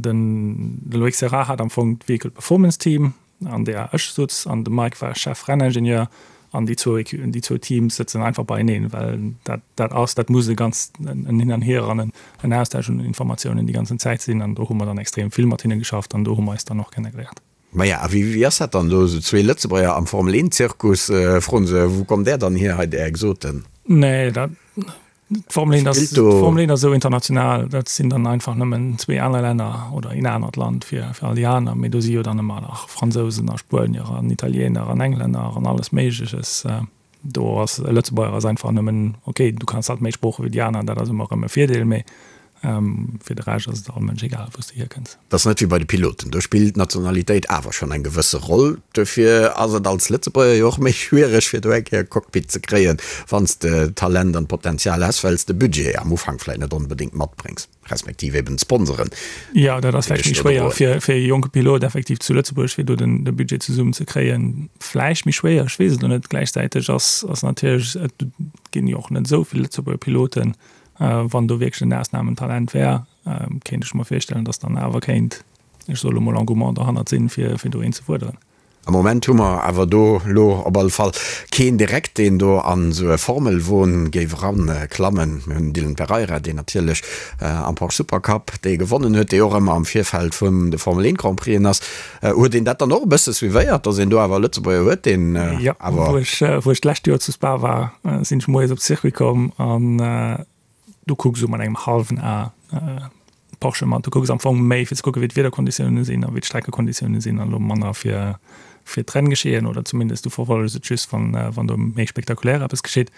den de Loïc Serra hat am Fong d'Vehicle Performance Team. an där ech sutz an de Mike war Chef-Renningenieur an déi zwou déi zwou Teams sëtzen einfach beieneen, well dat dat ass, dat muss e ganz en Hin an Hier an en Austausch un Informatiounen déi ganzen Zäit sinn an do hu mer dann extrem vill mat hinne geschafft an do hu mer eis dann och kennegeléiert. Maja, a wéi wéi ass dat dann do, esou zwee Lëtzebuerger am Formel 1 Zirkus, froen se, wou kommt där dann hier hei, där Exoten? Nee, dat D'Formel 1 ass, d'Formel 1 ass esou international, dat sinn dann einfach nëmmen zwee aner Länner oder een anert Land fir, fir all déi aner. Mee do si jo dann ëmmer nach Fransousen a Spuenier an Italiener an Englänner an alles Méigleches. Do ass e Lëtzebuerger ass einfach nëmmen, okay, du kanns halt méi Sprooche wéi déi aner, dat ass ëmmer erëm e Virdeel, mee Fir de Rescht ass et all Mënsch egal, wou s de hierkënns. Dat ass net wéi bei de Piloten, do spillt d'Nationalitéit awer schonn eng gewësse Roll. Dofir ass et als Lëtzebuerger jo och méi schwiereg, fir do eng Kéier e Cockpit ze kréien, wann s de d'Talent an d'Potenzial häss, well s de Budget am Ufank vläicht net onbedéngt matbréngs, respektiv eben d'Sponsoren. Jo, dat ass vläicht méi schwéier fir e jonke Pilot effektiv zu Lëtzebuerg, fir do de Budget zesummen ze kréien. Vläicht méi schwéier, ech weess et elo net. Gläichzäiteg ass natierlech, et ginn jo och net esou vill Lëtzebuerger Piloten. Wann do wierklech en Ausnamentalent wär, kéint ech mer virstellen, datt dann awer kéint, ech soe lo mol, Engouement derhannert sinn, fir do een ze fuerderen. Am Moment hu mer awer do lo op alle Fall keen direkt, deen do an esou e Formelwon géif eranklammen. Mir hunn den Dylan Pereira, deen natierlech am Porsche Supercup dee gewonnen huet, dee och ëmmer am Virfeld vun de Formel 1 Grand Prixen ass. Huet een dat dann och e bësse suivéiert, datt een do awer e Lëtzebuerger huet, deen awer. Jo, wou ech, wou ech d'lescht Joer zu Spa war, sinn ech moies op de Circuit komm an du kucks esou mat engem hallwen A Porsche mat. Du kucks am Fong méi fir ze kucke wéi d'Wiederkonditioune sinn a wéi d'Streckekonditioune sinn an elo manner fir fir d'Renngeschehen oder zumindest du verfollegs et just wann wann do méi spektakulär eppes geschitt.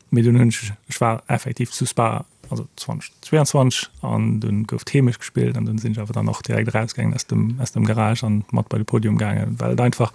Mee dunn hunn ech, ech war effektiv zu Spa, also 2022 an dunn gouf d'Heemecht gespillt an dunn sinn ech awer dann och direkt erausgaangen aus dem aus dem Garage an mat bei de Podium gaangen, well et einfach,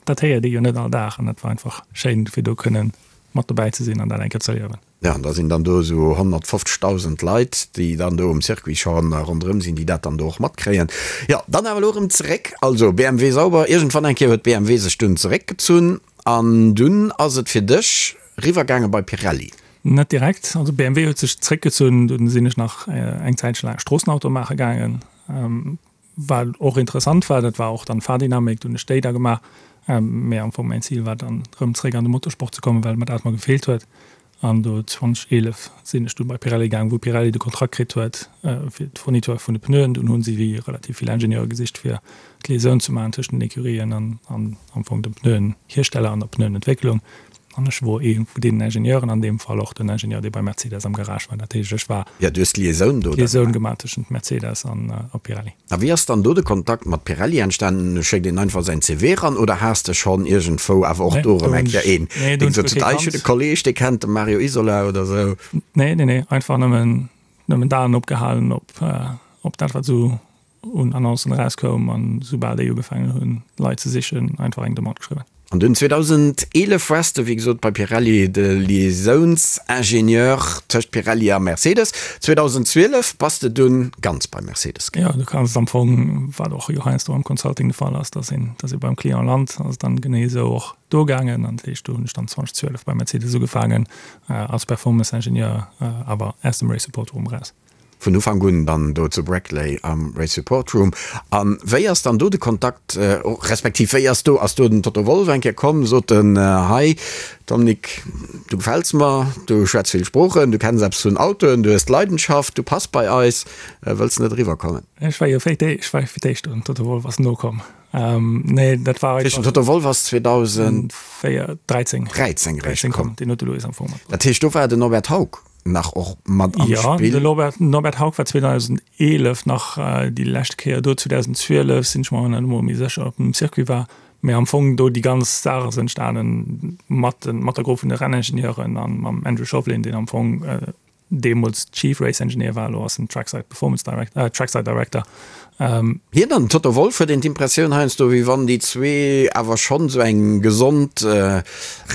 dat héiert ee jo net all Dag an dat war einfach schéin fir do kënnen mat dobäi ze sinn an dat eng Kéier ze erliewen. Ja, an da sinn dann do esou 150.000 Leit, déi dann do um Circuit scho ronderëm sinn, déi dat dann do och matkréien. Jo, dann awer elo erëm zeréck, also BMW Sauber, iergendwann eng Kéier huet BMW sech dunn zeréckgezunn an dunn ass et fir dech riwwergaange bei Pirelli. Net direkt, also BMW huet sech zeréckgezunn, dunn sinn ech nach eng Zäitche laang Stroossenauto maache gaangen. Wat och interessant war, dat war och dann Fahrdynamik, do hunn ech déi da gemaach. Mee am Fong mäin Zil war dann erëm zeréck an de Motorsport ze kommen, well mer dat mer gefeelt huet. An do 2011 sinn ech du bei Pirelli gaang, wou Pirelli de Kontrakt kritt huet fir d'Fourniture vun de Pneuen. Dunn hu si relativ vill Ingenieure gesicht fir d'Liaisoun ze maachen tëschent den Ecurien an am Fong dem Pneuenhiersteller an der Pneuenentwécklung. An ech wor ee vu deenen Ingenieuren, an deem Fall och den Ingenieur, dee bei Mercedes am Garage war. Dat heescht, ech war. Jo, du hues d'Liaisoun do dann gemaach. D'Liaisoun gemaach tëschent Mercedes an a Pirelli. A wéi ass dann do de Kontakt mat Pirelli entstanen? Schéckt een einfach säin CV eran oder has de schonn iergendwou awer och do erëm eng Kéier een, deen sot, ah, ech hunn e Kolleeg, dee kennt de Mario Isola oder esou? Nee, nee, nee, einfach nëmmen, nëmmen d'Aen opgehalen op, op dat, wat esou un Annoncen erauskoum an soubal déi ugefaangen hunn Leit ze sichen, einfach eng Demande geschriwwen. An dunn 2011 wars de wéi gesot bei Pirelli de Liaisounsingenieur tëscht Pirelli a Mercedes. 2012 bass de dunn ganz bei Mercedes gaangen. Jo, du kanns et am Fong, wat och jo heiansdo am Consulting de Fall ass, dass een, dass ee beim Client lant, ass et dann genee esou och do gaangen. An dat heescht, do hunn ech dann 2012 bei Mercedes ugefaangen als Performance-Ingenieur, awer aus dem Race Support Room eraus. Vun Ufank un dann do zu Brackley am Race Support Room. A wéi ass dann do de Kontakt, respektiv wéi ass do, ass do den Toto Wolff eng Kéier komm, sot en, hei Dominique, du gefäls mer, du schwätz vill Sproochen, du kenns eppes vun Autoen, du hues d'Leidenschaft, du pass bei eis, wëlls de net eriwwer kommen? Ech war jo fir d'éischt, ech war fir d'éischt do, den Toto Wolff ass nokomm. Nee, dat war einfach. Den Toto Wolff ass 2013 eréischt komm. Deen huet de Louis am Fong matbruecht. Dat heescht, do war den Norbert Haug nach och mat am Spill. Jo, de Norbert Haug war 2011 nach déi lescht Kéier do. 2012 sinn ech mer net emol méi sécher, ob en um Circuit war. Mee am Fong do déi ganz Saach ass entstanen mat mat der Grupp vun de Renningenieuren a mam Andrew Shovlin, deen am Fong deemools Chief Race Engineer war, elo ass en Trackside Performance Director, Trackside Director. Hien an den Toto Wolff, huet een d'Impressioun heiansdo, wéi wann déi zwee awer schonn esou eng gesond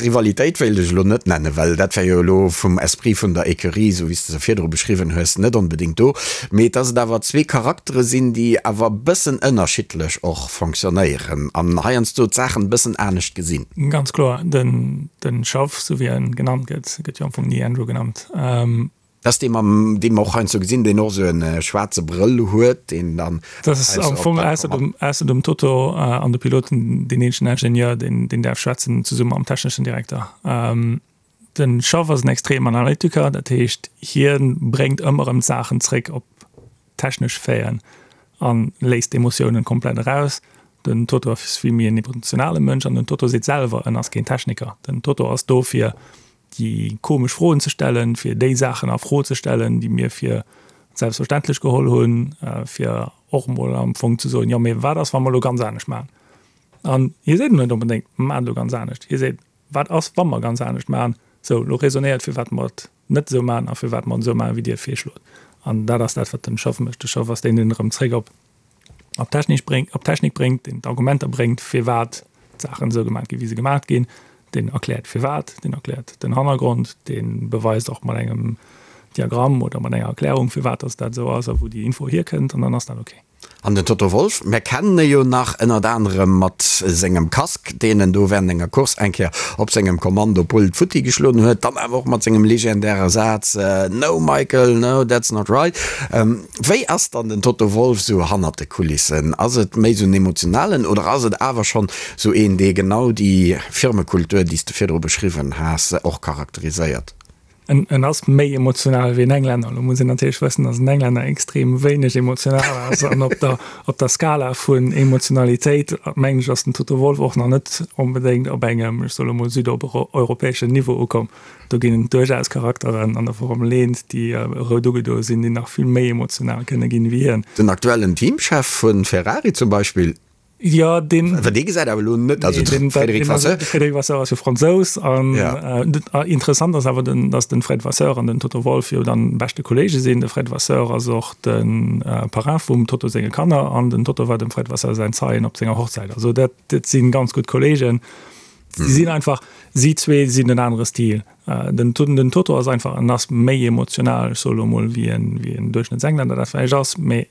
Rivalitéit wéilt ech elo net nennen, well dat wär jo elo vum Esprit vun der Ecurie, esou wéi s de se virdru beschriwwen hues, net onbedéngt do, mee dass et awer zwee Charaktere sinn, déi awer e bëssen ënnerschiddlech och fonctionnéieren an heiansdo d'Saachen e bëssen anescht gesinn. Ganz kloer, den Schaff, esou wéi en genannt gëtt, gëtt jo am Fong ni Andrew genannt. Dat ass dee mam, dee mer och heiansdo gesinn, deen och esou e schwaarze Brëll huet, deen dann. Dat ass am Fong ausser dem, ausser dem Toto an de Piloten deen eenzegen Ingenieur, deen, deen däerf schwätzen, zesumme mam techneschen Direkter. Den Schaff ass en extrem Analytiker, dat heescht hie bréngt ëmmer erëm d'Saachen zréck op technesch Faiten a léisst d'Emotiounen komplett eraus. Den Toto ass vill méi en emotionale Mënsch an den Toto seet selwer, en ass keen Techniker. Den Toto ass do fir déi komesch Froen ze stellen, fir déi Saachen a Fro ze stellen, déi mir fir selbstverständlech geholl hunn, fir och emol am Fong ze soen, jo mee wat ass wa mer elo ganz anescht maachen? An hie seet net onbedéngt, maacht elo ganz anescht. Hie seet, Wat ass, wa mer ganz anescht maachen? Sou, elo raisonnéiert, firwat mer et net esou maachen a firwat mer et esou maachen, wéi Dir et virschlot. An dat ass dat, wat den Schaff mécht. De Schaff ass deen, deen erëm zréck op op d'Technik bréngt, op d'Technik bréngt, deen d'Argumenter bréngt, firwat d'Saachen esou gemaach ginn, wéi se gemaach ginn. Deen erkläert firwat, deen erkläert den Hannergrond, dee beweist och mat engem Diagramm oder mat enger Erklärung, firwat dass dat esou ass a wou déi Info hierkënnt, an dann ass dat ok. An den Toto Wolff, mär kennen e jo nach ënnert anerem mat sengem Casque, deen en do während enger Course eng Kéier op sengem Kommandopult futti geschloen huet, dann awer och mat sengem legendäre Saz No Michael, no, that's not right. Wéi ass dann den Toto Wolff sou hannert de Kulissen? Ass et méi sou en emotionalen oder ass et awer schonn sou een, dee genau déi Firmekultur, déi s de virdru beschriwwen has, och charakteriséiert? En ass méi emotional wéi en Englänner. Lo muss een natierlech wëssen, datt en Englänner extrem wéineg emotional ass. An op der, op der Skala vun Emotionalitéit, mengen ech, ass den Toto Wolff och nach net onbedéngt op engem, ech soe lo mol, südeuropäeschen Niveau ukomm. Do ginn et duerchaus Charakteren an der Formel 1, déi rout ugedoe sinn, déi nach vill méi emotional kënne ginn wéi hien. Den aktuellen Teamchef vu Ferrari zum Beispill. Jo, deen. Well dee gesäit awer elo net, also de Frédéric Vasseur. De Frédéric Vasseur ass jo Fransous an interessant ass awer, datt de Fred Vasseur an den Toto Wolff jo dann beschte Kolleege sinn. De Fred Vasseur ass och de Parrain vum Toto senge Kanner an den Toto war dem Fred Vasseur säin Zeien op senger Hochzäit. Also dat si ganz gutt Kolleegen. Si sinn einfach, si zwee sinn en anere Stil. Den den Toto ass einfach, en ass méi emotional, ech soe lo mol, wéi en Duerchschnëttsenglänner dat vläicht ass, mee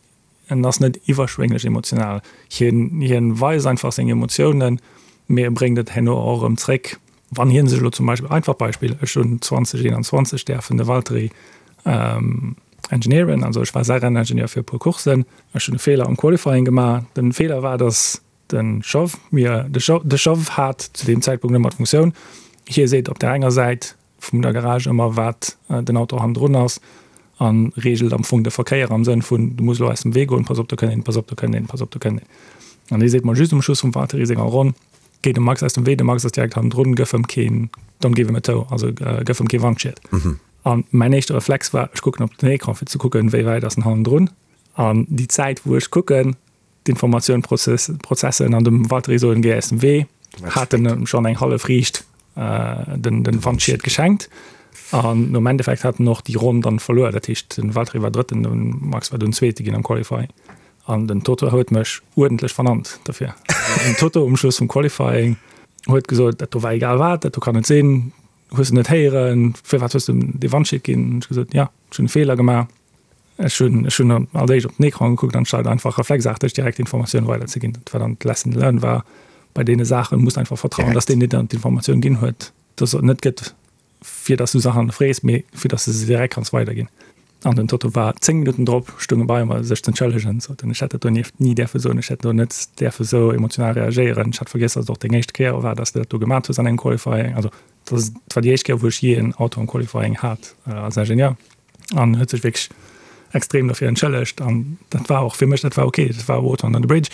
En ass net iwwerschwénglech emotional. Hien, hien weist einfach seng Emotiounen, mee e bréngt et herno och erëm zréck. Wann hien sech elo zum Beispill, einfach Beispill, ech hunn 2021 däerfen de Valtteri engineeren, also ech war säi Renningenieur fir e puer Courssen. Ech hunn e Feeler am Qualifying gemaach. Den Feeler war, datt de Chauff mir, de Chauff, de Chauff hat zu deem Zäitpunkt ëmmer d'Funktioun, hie seet op där enger Säit, vum der Garage ëmmer wat den Auto hannendrun ass a reegelt am Fong de Verkéier am Sënn vun, du muss elo aus dem Wee goen, pass op do kënnt een, pass op do kënnt een, pass op do kënnt een. An hie seet mer just um Schluss vum Valtteri senger Ronn, Géi dem Max aus dem Wee, de Max ass direkt hannendrun, gëff em keen, don't give him a tow, also gëff em kee Wandschied. An mäin éischte Reflex war, ech kucken op den Ecran fir ze kucken, wéi wäit ass en hannendrun. An déi Zäit wou ech kucken, d'Informatioun prozessen an dem Valtteri soen, Géi aus dem Wee, hat en em schonn eng hallef Riicht den den Wandschied geschenkt. An am Endeffekt hat en och déi Ronn dann verluer. Dat heescht den Valtteri war Drëtten, den Max war dunn Zweete ginn am Qualifying. An den Toto huet mech uerdentlech vernannt dofir. Den Toto um Schluss vum Qualifying huet gesot, dat do war egal wat, dat do kann net sinn, hues de net héieren, firwat hues de em dee Wandschied ginn? Hunn ech gesot, jo, ech hunn e Feeler gemaach. Ech hunn ech hunn als éischt op den Ecran gekuckt, anstatt einfach reflexarteg direkt d'Informatioun weiderzeginn. Dat war dann d'Lesson learned war, bei deene Saache muss einfach vertrauen, dass deen, deen der d'Informatioun ginn huet, dass et net gëtt, fir dass du Saachen frees, mee fir dass de se direkt kanns weiderginn. An den Toto war 10 Minutten drop, stoung e bei mer, sech z'entschëllegen, sot en, ech hätt dat donieft ni däerfe soen, ech hätt do net däerfe sou emotional reagéieren, ech hat vergiess, dass et och deng éischt Kéier war, dass de dat do gemat hues an engem Qualifying. Also dat war déi éischt Kéier, wou ech jee en Auto am Qualifying hat als Ingenieur. An huet sech wierklech extrem dofir entschëllegt. An dat war och fir mech, dat war ok, dat war Water under the bridge.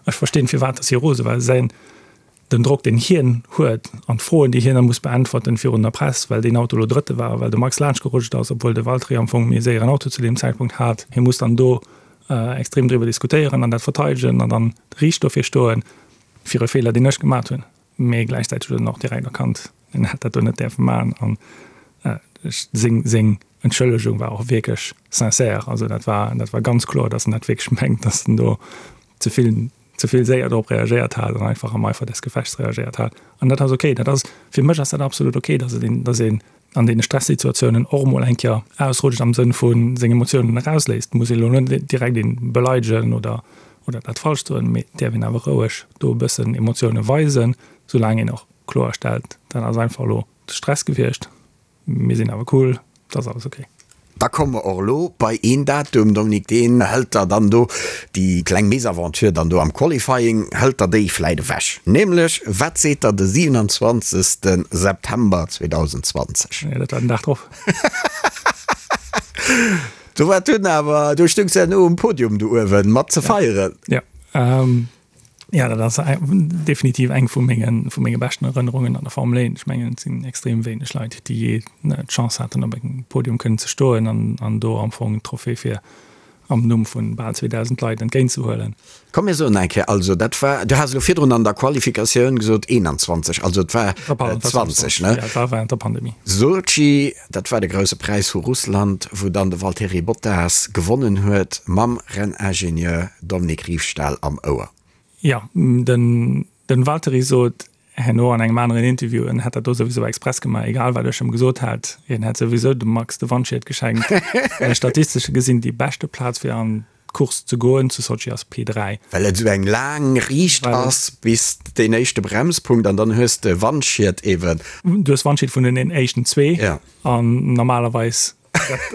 Ech verstinn, firwat dass hie rose war. Säin, den Drock, deen hien huet an d'Froen, déi hien da muss beäntwerten virun der Press, well deen Auto elo Drëtte war, well de Max laanschtgerutscht ass, obwuel de Valtteri am Fong méi séieren Auto zu deem Zäitpunkt hat. Hie muss dann do extrem driwwer diskutéieren an dat verteidegen an dann riicht dofir stoen, fir e Feeler, deen ech gemat hunn. Mee gläichzäiteg huet en och direkt erkannt, en hätt dat do net däerfe maachen. An seng, seng Entschëllegung war och wierklech sincère. Also dat war, dat war ganz kloer, datt en dat wierklech mengt, datt en do ze vill, ze vill séier drop reagéiert hat an einfach am Eifer des Gefechts reagéiert hat. An dat ass okay. Dat ass, fir mech ass dat absolut okay, datt et een, datt een an deene Stressituatiounen och emol eng Kéier ausrutscht am Sënn vu seng Emotiounen erausléisst. Muss ee lo net direkt ee beleidegen oder, oder dat falsch soen, mee et däerf een awer roueg do e bëssen Emotioune weisen, soulaang een och kloerstellt, dat ass einfach elo de Stress gewiescht, mir sinn awer cool, et ass alles okay. da komme mer och elo bei een Datum, Dominique, deen hëlt der dann do déi kleng Mésaventure dann do am Qualifying, hëlt der déi vläit ewech. Nämlech, wat seet der de 27. September 2020? Jo, dat war den Dag drop. Do war dunn awer, do stoungs de herno um Podium do uewen mat ze feieren. Jo, jo, dat ass definitiv eng vu mengen, vu menge beschten Erënnerungen an der Formel 1. Ech mengen, et sinn extrem wéineg Leit, déi jee d'Chance haten, op engem Podium kënnen ze stoen an, an do am Fong d'Trophée fir am Numm vu bal 2.000 Leit entgéintzehuelen. Komm mir soen eng Kéier, also dat war, du has elo virdrun an der Qualifikatioun gesot 21, also et war 20, ne? Ja, et war während der Pandemie. Sotschi, dat war de Grousse Präis vu Russland, wou dann de Valtteri Bottas gewonnen huet mam Renningenieur Dominique Riefstahl am Ouer. Jo, den Valtteri sot herno an engem aneren Interview, en hätt dat do souwisou express gemaach, egal wat ech em gesot hätt, hien hätt souwisou dem Max de Wandschied geschenkt, well statistesche gesinn déi beschte Plaz fir an d'Course ze goen zu Sotschi ass P3. Well et esou eng laang Riicht ass bis deen éischte Bremspunkt an dann hues de Wandschied eben. Du hues Wandschied vun den éischten zwee an normalerweis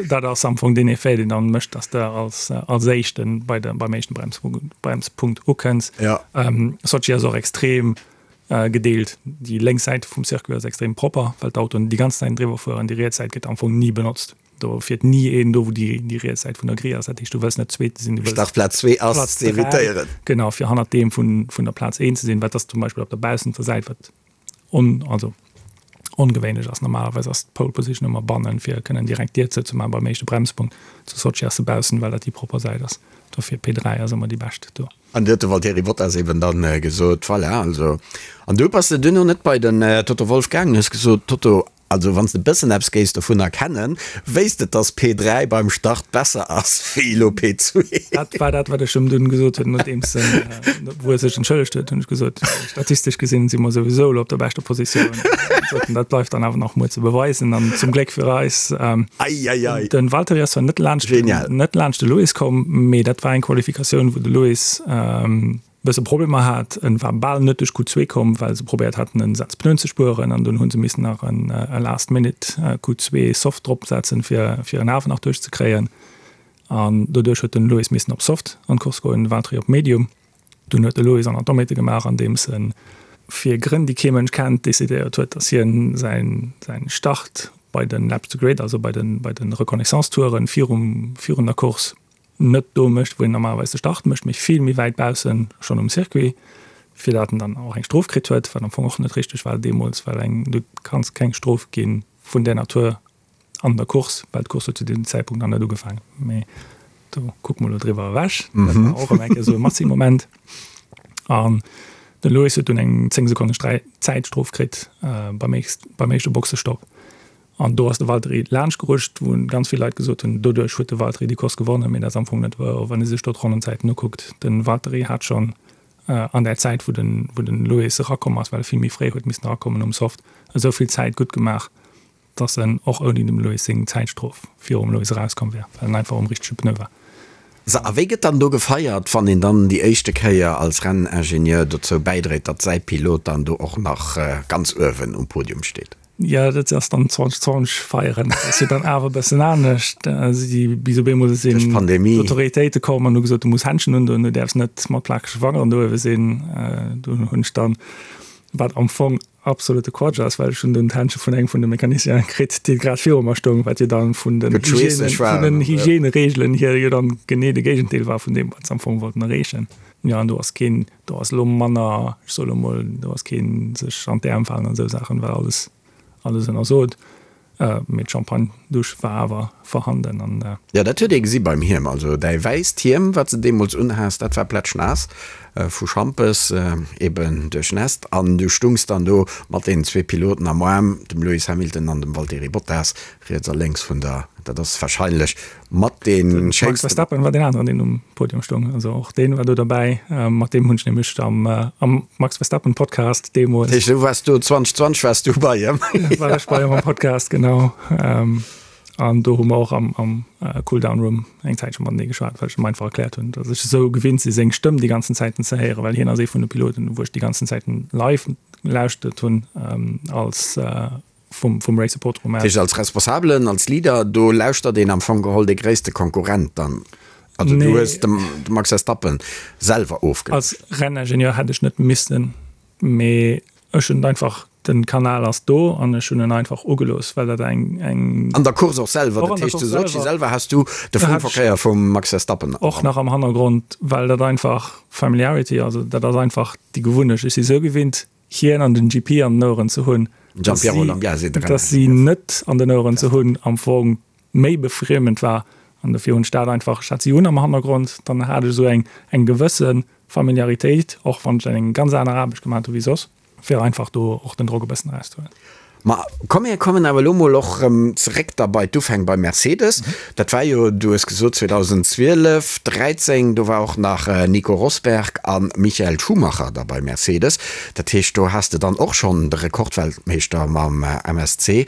Dat ass am Fong deen Effet, deen dann mécht, dass de als, als Éischten bei de, beim éischten Bremspunkt, Bremspunkt ukënns. Ja. Ähm, Sochi ass och extrem äh, gedeelt. Déi lénks Säit vum Circuit ass extrem propper, well d'Autoen déi ganz Zäit driwwer fueren. Déi riets Säit gëtt am Fong ni benotzt. Do fiert ni een do, wou déi, déi riets Säit vun der Grille ass. Dat heescht, du wëlls net Zweete sinn, du wëlls Startplaz 2 ass Platz ze 3, evitéieren. genau, fir hannert deem vun, vun der Plaz 1 ze sinn, wat ass zum Beispill op der baussenter Säit, wat on, also ongewéinlech ass. Normalerweis ass d'Pole Position ëmmer bannen, fir kënnen direkt d'Dier zou ze maachen beim éischte Bremspunkt. Zu Sotschi ass se baussen, well dat déi propper Säit ass. Dofir P3 ass ëmmer déi bescht do. An du huet de Valtteri Bottas eben dann gesot, voilà, also. An du bass de duerno net bei den Toto Wolff gaangen, hues gesot, Toto, Also wann s de bëssen eppes géifs dovun erkennen, wéisst de dass P3 beim Start besser ass wéi elo P2. Dat war dat wat ech em dunn gesot hunn, nodeems en, wou e sech entschëllegt huet, hunn ech gesot, statistesch gesinn si mer souwisou elo op der beschter Positioun. Sot en, dat bleift dann awer nach muer ze beweisen an zum Gléck fir eis, Eieiei. den Valtteri ass zwar net laanscht, Genial. net laanscht de Lewis komm, mee dat war eng Qualifikatioun wou de Lewis, bësse Problemer hat. En war bal net duerch Q2 komm, well se probéiert haten en Saz Pneuen ze spueren an dunn hu se missen nach en last minute Q2 Soft drop setzen fir fir en awer nach duerch ze kréien an doduerch huet den Lewis missen op Soft an d'Course goen, den Valtteri op Medium. Dunn huet de Lewis an Atometer gemaach andeems en fir Grënn déi kee Mënsch kennt decidéiert huet, datt hien säin säin Start bei den Laps to Grid, also bei den bei den Reconnaissance-Touren virum virun der Course net do mécht, wou een normalerweis de Start mécht, mee vill méi wäit baussen schonn um Circuit, fir dat en dann och eng Strof kritt huet, wat am Fong och net richteg war deemools, well eng, du kanns keng Strof gi vun där Natur an der Course, well d'Course huet zu deem Zäitpunkt nach net ugefaangen. Mee do kucke mer elo driwwer ewech. Dat war och erëm eng Kéier esou e Massi-Moment. An de Lewis huet dunn eng 10 Sekonne Zäitstrof kritt beim éischte Boxestopp. An do ass de Valtteri laanscht gerutscht, wou ganz vill Leit gesot hunn, doduerch huet de Valtteri déi Course gewonnen, mee dat ass am Fong net wouer, wann ee sech do d'Ronnenzäiten ukuckt. De Valtteri hat schonn an där Zäit, wou de wou de Lewis erakomm ass, well e vill méi fréi huet missen erakommen um Soft, esou vill Zäit gutt gemaach, datt en och ouni dem Lewis seng Zäitstrof virum Lewis erauskomm wär, well en einfach um richtege Pneu war. Sou, a wéi gëtt dann do gefeiert, wann een dann déi éischte Kéier als Renningenieur dozou bäidréit, datt säi Pilot dann do och nach ganz uewen um Podium steet? Jo, dat ass dann 2020 feieren. Dat ass jo dann awer e bëssen anescht. Si bis op eemol sinn Duerch d'Pandemie. d'Autoritéite komm an hu gesot, du muss Händschen undoen, du däerfs net mat plakege Fangeren do uewe sinn. Do hunn ech dann, wat am Fong absolute Quatsch ass, well ech hunn dunn d'Händsche vun engem vun de Mecanicienen kritt, dee grad viru mer stoung, wat jo dann vun den Gutt, schweesseg Hygiène, vun den Hygiènereegelen hier jo dann genee de Géigendeel war vun deem, wat se am Fong wollten erreechen. Jo, an do ass keen, do ass elo manner, ech soe lo mol, do ass keen sech an d'Äerm falen an esou Saachen, well alles, alles ënnersot. Mee d'Champagne-Dusch war awer vorhanden an. Jo, dat huet ee gesi beim Hiem. Also däi wäisst Hiem, wat s de deemools unhas, dat war plätschnaass vu Schampes, eben duerchnässt. An du stungs dann do mat deenen zwee Piloten am Aarm, dem Lewis Hamilton an dem Valtteri Bottas, riets a lénks vun der, dat ass warscheinlech Mat dee schéinsten. De Max Verstappen war deen aneren, deen um Podium stoung. Also och deen war do derbäi. Mat deem hunn ech nämlech am am Max Verstappen Podcast deemools. Dat heescht, du waars do 2020 waars du bei him? War ech bei him am Podcast, genau. An do hu mer och am am Cooldown Room eng Zäitche matenee geschwat, well ech em einfach erkläert hunn, datt ech esou gewinnt si seng Stëmm déi ganzen Zäiten ze héieren, well hien ass ee vun de Piloten, wou ech déi ganzen Zäiten live lauschtert hunn als. vum, vum Race Support Room aus. Dat heescht, als Responsabelen, als Leader, do lauschtert een am Fong geholl dee gréisste Konkurrent dann? Also du hues de Max Verstappen selwer ofgelauschtert? Als Renningenieur hätt ech net missen, mee ech hunn et einfach, den Kanal ass do an ech hunn en einfach ugelooss, well dat eng, eng. An der Course och selwer? Dat heescht zu Sotschi selwer has du de Funkverkéier vum Max Verstappen? Och nach am Hannergrond, well dat einfach Familiarity, also dat ass einfach déi Gewunnecht. Ech si sou gewinnt hien an den GP an den Oueren ze hunn, dass si net an den Oueren ze hunn am Fong méi befriemend war. An dofir hunn ech dat einfach, ech hat si un am Hannergrond, dann hat ech esou eng eng gewësse Familiaritéit, och wann ech eng ganz aner Aarbecht gemaat hu wéi soss, fir einfach do och den Drock e bëssen erauszehuelen. Ma komm mir kommen awer elo mol och erëm zeréck da bei d'Ufäng bei Mercedes. Dat war jo, du hues gesot 2012, 13, do war och nach Nico Rosberg a Michael Schumacher da bei Mercedes. Dat heescht do has de dann och schonn de Rekordweltmeeschter mam MSC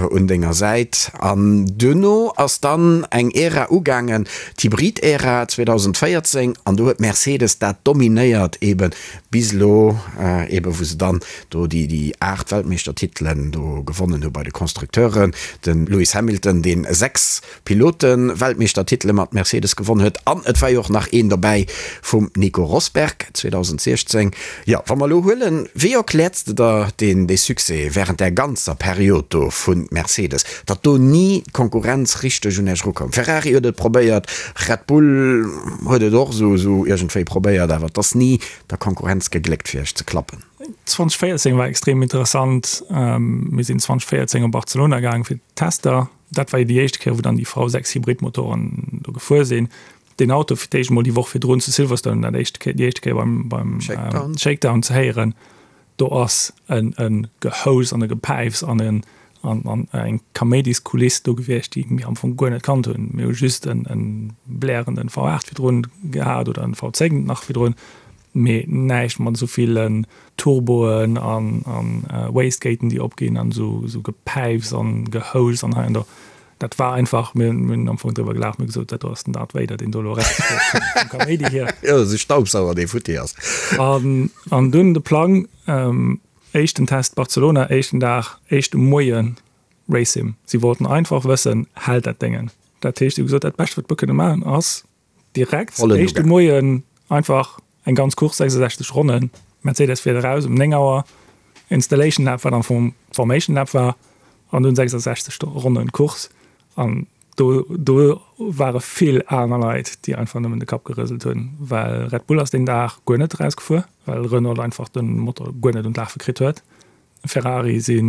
un denger Säit. An duerno ass dann eng Ära ugaangen, d'Hybrid-Ära 2014, an do huet Mercedes dat dominéiert eben bis elo eben, wou se dann do déi déi 8 Weltmeeschtertitelen do gewonnen hu bei de Constructeuren, de Lewis Hamilton, deen 6 Pilote-Weltmeeschtertitele mat Mercedes gewonn huet an et war jo och nach een dobäi vum Nico Rosberg 2016. Jo, wa mer elo huelen, wéi erkläerts de der deen dee Succès wärend där ganzer Period do vu Mercedes, datt do ni d'Konkurrenz richteg un Iech erukoum? Ferrari huet et probéiert, Red Bull huet et och esou esou iergendwéi probéiert, awer et ass ni der Konkurrenz gegléckt fir Iech ze klappen. 2014 war extrem interessant. Mir sinn 2014 op Barcelona gaang fir d'Tester. Dat war jo déi éischt Kéier, wou dann déi V6 Hybridmotoren do gefuer sinn. Deen Auto fir d'éischt emol déi Woch virdrun zu Silverstone dat éischt Kéier, déi éischt Kéier beim, beim Shakedown. Shakedown ze héieren, do ass en, e Gehous an e Gepäifs an en, an, an eng Kaméidiskuliss do gewiescht, déi mir am Fong guer net kannt hunn. Mir hu just en, en blärenden V8 virdrun gehat oder en V10 nach virdrun. Mee näischt mat esou villen Turboen an Wastegaten déi opginn an esou Gepäifs an Gehouschs an hei an do. Dat war einfach, mir hunn am Fong driwwer gelaacht, mir hu gesot, dat do ass den Darth Vader, deen do elo erausgeet vum Kaméidi hier. Jo, esou Staubsauger, dee futti ass. An dunn de Plang, éischten Test Barcelona, éischten Dag, éischte Moie Race-Sim. Si wollten einfach wëssen, hält dat Déngen? Dat heescht, si hu gesot, dat Bescht wat mer kënne maachen ass, Direkt éischte Moien einfach eng ganz Course, 66 Ronnen. Mercedes fiert eraus um 9 Auer, Installation Lap, wat am Fong Formation Lap war, an dunn 66 Ronnen Course. An do, do ware vill aner Leit, déi einfach nëmmen de Kapp gerëselt hunn, well Red Bull ass deen Dag guer net erausgefuer, well Renault einfach de Motor guer net un d'Lafe kritt huet. Ferrari si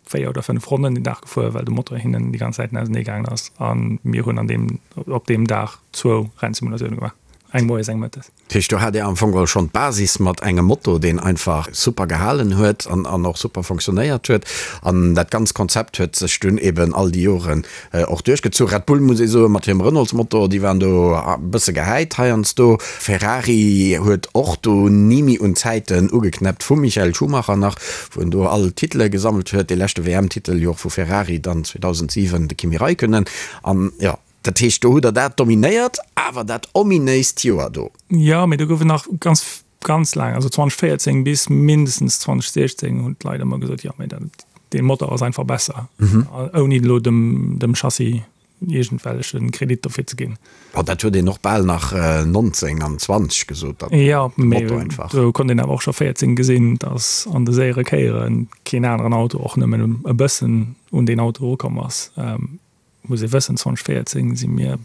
4 oder 5 Ronnen den Dag gefuer, well de Motor hinnen déi ganz Zäiten ausenee gaangen ass. A mir hunn an deem, op deem Dag zwou Rennsimulatioune gemaach, eng moies, eng mëttes. Dat heescht, do hat Dir am Fong geholl schonn d'Basis mat engem Motor, deen einfach super gehalen huet an an och super fonctionnéiert huet. An dat ganzt Konzept huet sech dunn eben all déi Joren Och duerchgezu. Red Bull, muss ee soen, mat hirem Renaultsmotor, déi waren do e bësse gehäit heiansdo. Ferrari huet och do ni méi un d'Zäiten ugeknäppt vum Michael Schumacher nach, wou en do all d'Titele gesammelt huet, dee leschte WM-Titel jo och vu Ferrari dann 2007 de Kimi Räikkönen. An jo, dat heescht, do hutt der dat dominéiert, awer dat ominéist Joer do. Jo, mee do gouf et nach ganz, ganz laang, also 2014 bis mindestens 2016 hunn d'Leit ëmmer gesot, jo, mee dat, dee Motor ass einfach besser, ouni elo dem, dem Chassis iergendwelleche Kredit dofir ze ginn. Bon, dat huet een och bal nach 19 an 20 gesot, datt de Motor einfach. Jo, mee do konnt een awer och scho 14 gesinn, datt an de séiere Kéiere keen aneren Auto och nëmmen e bëssen un deen Auto erukomm ass. Muss ee wëssen, 2014 si mir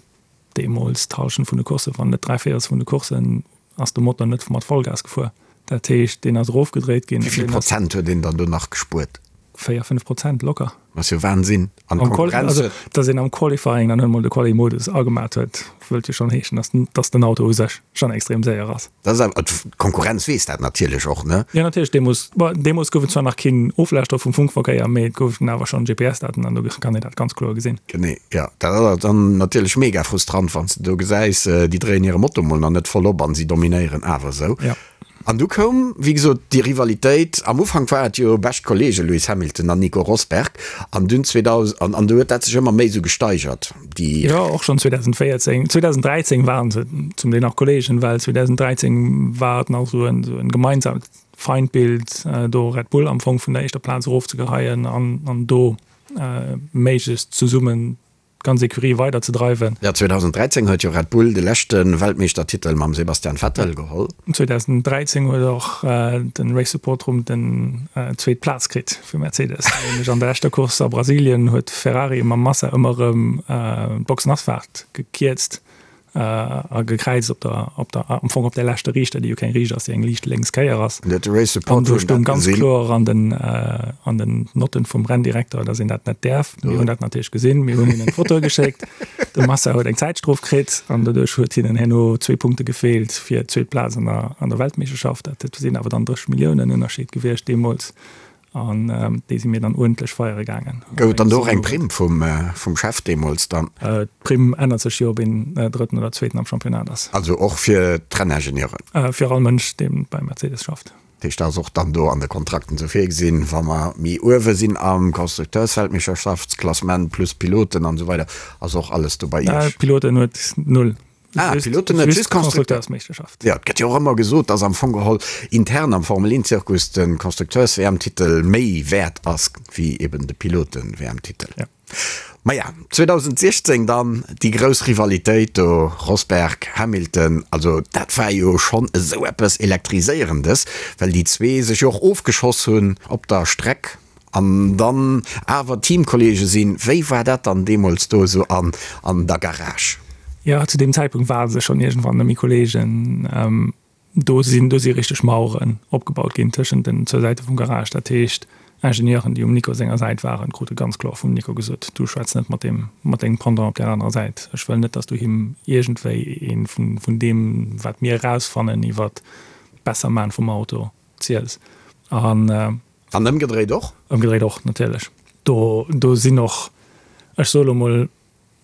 deemools d'Hallschent vun de Courssen, wann net dräivéierels vun de Courssen, ass de Motor net mat Vollgas gefuer. Dat heescht, deen ass erofgedréit ginn. Wéi vill Prozent huet een dann do nach gespuert? 4, 5 Prozent locker. Dat ass jo Wahnsinn. An d'Konkurrenz huet. Also, datt een am Qualifying dann emol de Quali-Modus agemat huet, wëllt jo schonn heeschen, datt, datt den Auto u sech schonn extrem séier ass. Dat ass awer, d'Konkurrenz weess dat natierlech och, ne? Jo, natierlech. Deemools, bon, deemools gouf et zwar nach keen Oflauschtere vum Funkverkéier, mee et goufen awer schonn GPS-Daten an do kann een dat ganz kloer gesinn. Genee, jo. Dat ass awer dann natierlech mega frustrant, wann s de do gesäis, déi dréien hire Motor mol nach net voll op an si dominéieren awer esou. Jo. An du koum, wéi gesot, déi Rivalitéit. Am Ufank war et jo bescht Kollege Lewis Hamilton an Nico Rosberg an dunn 2000, an an du huet dat sech ëmmer méi esou gesteigert, déi. Jo, och schonn 2014, 2013 waren se zum Deel nach Kollegen, well 2013 war et nach esou en, esou en gemeinsamt Feindbild, do Red Bull am Fong vun der éischter Plaz erofzegeheien an, an do méiglechst zesummen d'ganz Ecurie weider ze dreiwen. Jo, 2013 huet jo Red Bull de leschte Weltmeeschtertitel mam Sebastian Vettel geholl. 2013 huet och de Race Support Room den zweet Plaz kritt fir Mercedes. Nämlech an der leschter Course a Brasilien huet Ferrari mam Massa ëmmer erëm d'Boxenasfaart gekierzt. A gekräizt op der, op der, am Fong op der leschter Riichter, déi jo keng Riicht ass, déi eng liicht lénks Kéier ass. An do stoung ganz kloer an den, an den Notten vum Renndirekter, datt een dat net däerf. Mir hunn dat natierlech gesinn, mir hunn hinnen d'Fotoe geschéckt. De Massa huet eng Zäitstrof kritt an doduerch huet hinnen herno zwee Punkte gefeelt fir d'zweet Plaz an der, an der Weltmeeschterschaft. Dat sinn awer dann 30 Milliounen Ënnerscheed gewiescht deemools. An déi si mir dann uerdentlech feiere gaangen. Gouf et dann do och eng Primm vum Chef deemools dann? D'Primm ännert sech jo, ob een Drëtten oder Zweeten am Championnat ass. Also och fir d'Renningenieuren? Fir all Mënsch, dee bei Mercedes schafft. Dat heescht, dat ass och dann do an de Kontrakten esou virgesinn, wa mer méi uewe sinn am Constructeursweltmeeschterschaftsklassement plus Piloten an esou weider, ass och alles do bei Iech? Piloten huet null. Ah, Piloten net, just Constructeursmeeschterschaft. Jo, et gëtt jo och ëmmer gesot, dass am Fong geholl intern am Formel-1-Zirkus de Constructeurs-WM-Titel méi wäert ass wéi eben de Piloten-WM-Titel. Ja. Maja, 2016 dann déi grouss Rivalitéit do, Rosberg, Hamilton, also dat war jo schonn esou eppes Elektriséierendes, well déi zwee sech jo och ofgeschoss hunn op der Streck. An dann awer Teamkollege sinn. Wéi war dat dann deemools do esou an an der Garage? Jo, zu deem Zäitpunkt ware se schonn iergendwann net méi Kollegen. Do sinn do si richteg Maueren opgebaut ginn tëschent den zwou Säite vum Garage. Dat heescht, Ingenieuren, déi um Nico senger Säit waren, krute ganz kloer vum Nico gesot, Du schwätz net mat deem, mat dengem Pendant op där anerer Säit. Ech wëll net, dass du him iergendwéi ee vun vun deem, wat mir erausfannen iwwert d'Besserman vum Auto, ziels. An. An ëmgedréit och? Ëmgedréit och, natierlech. Do, do sinn och, ech soe lo mol,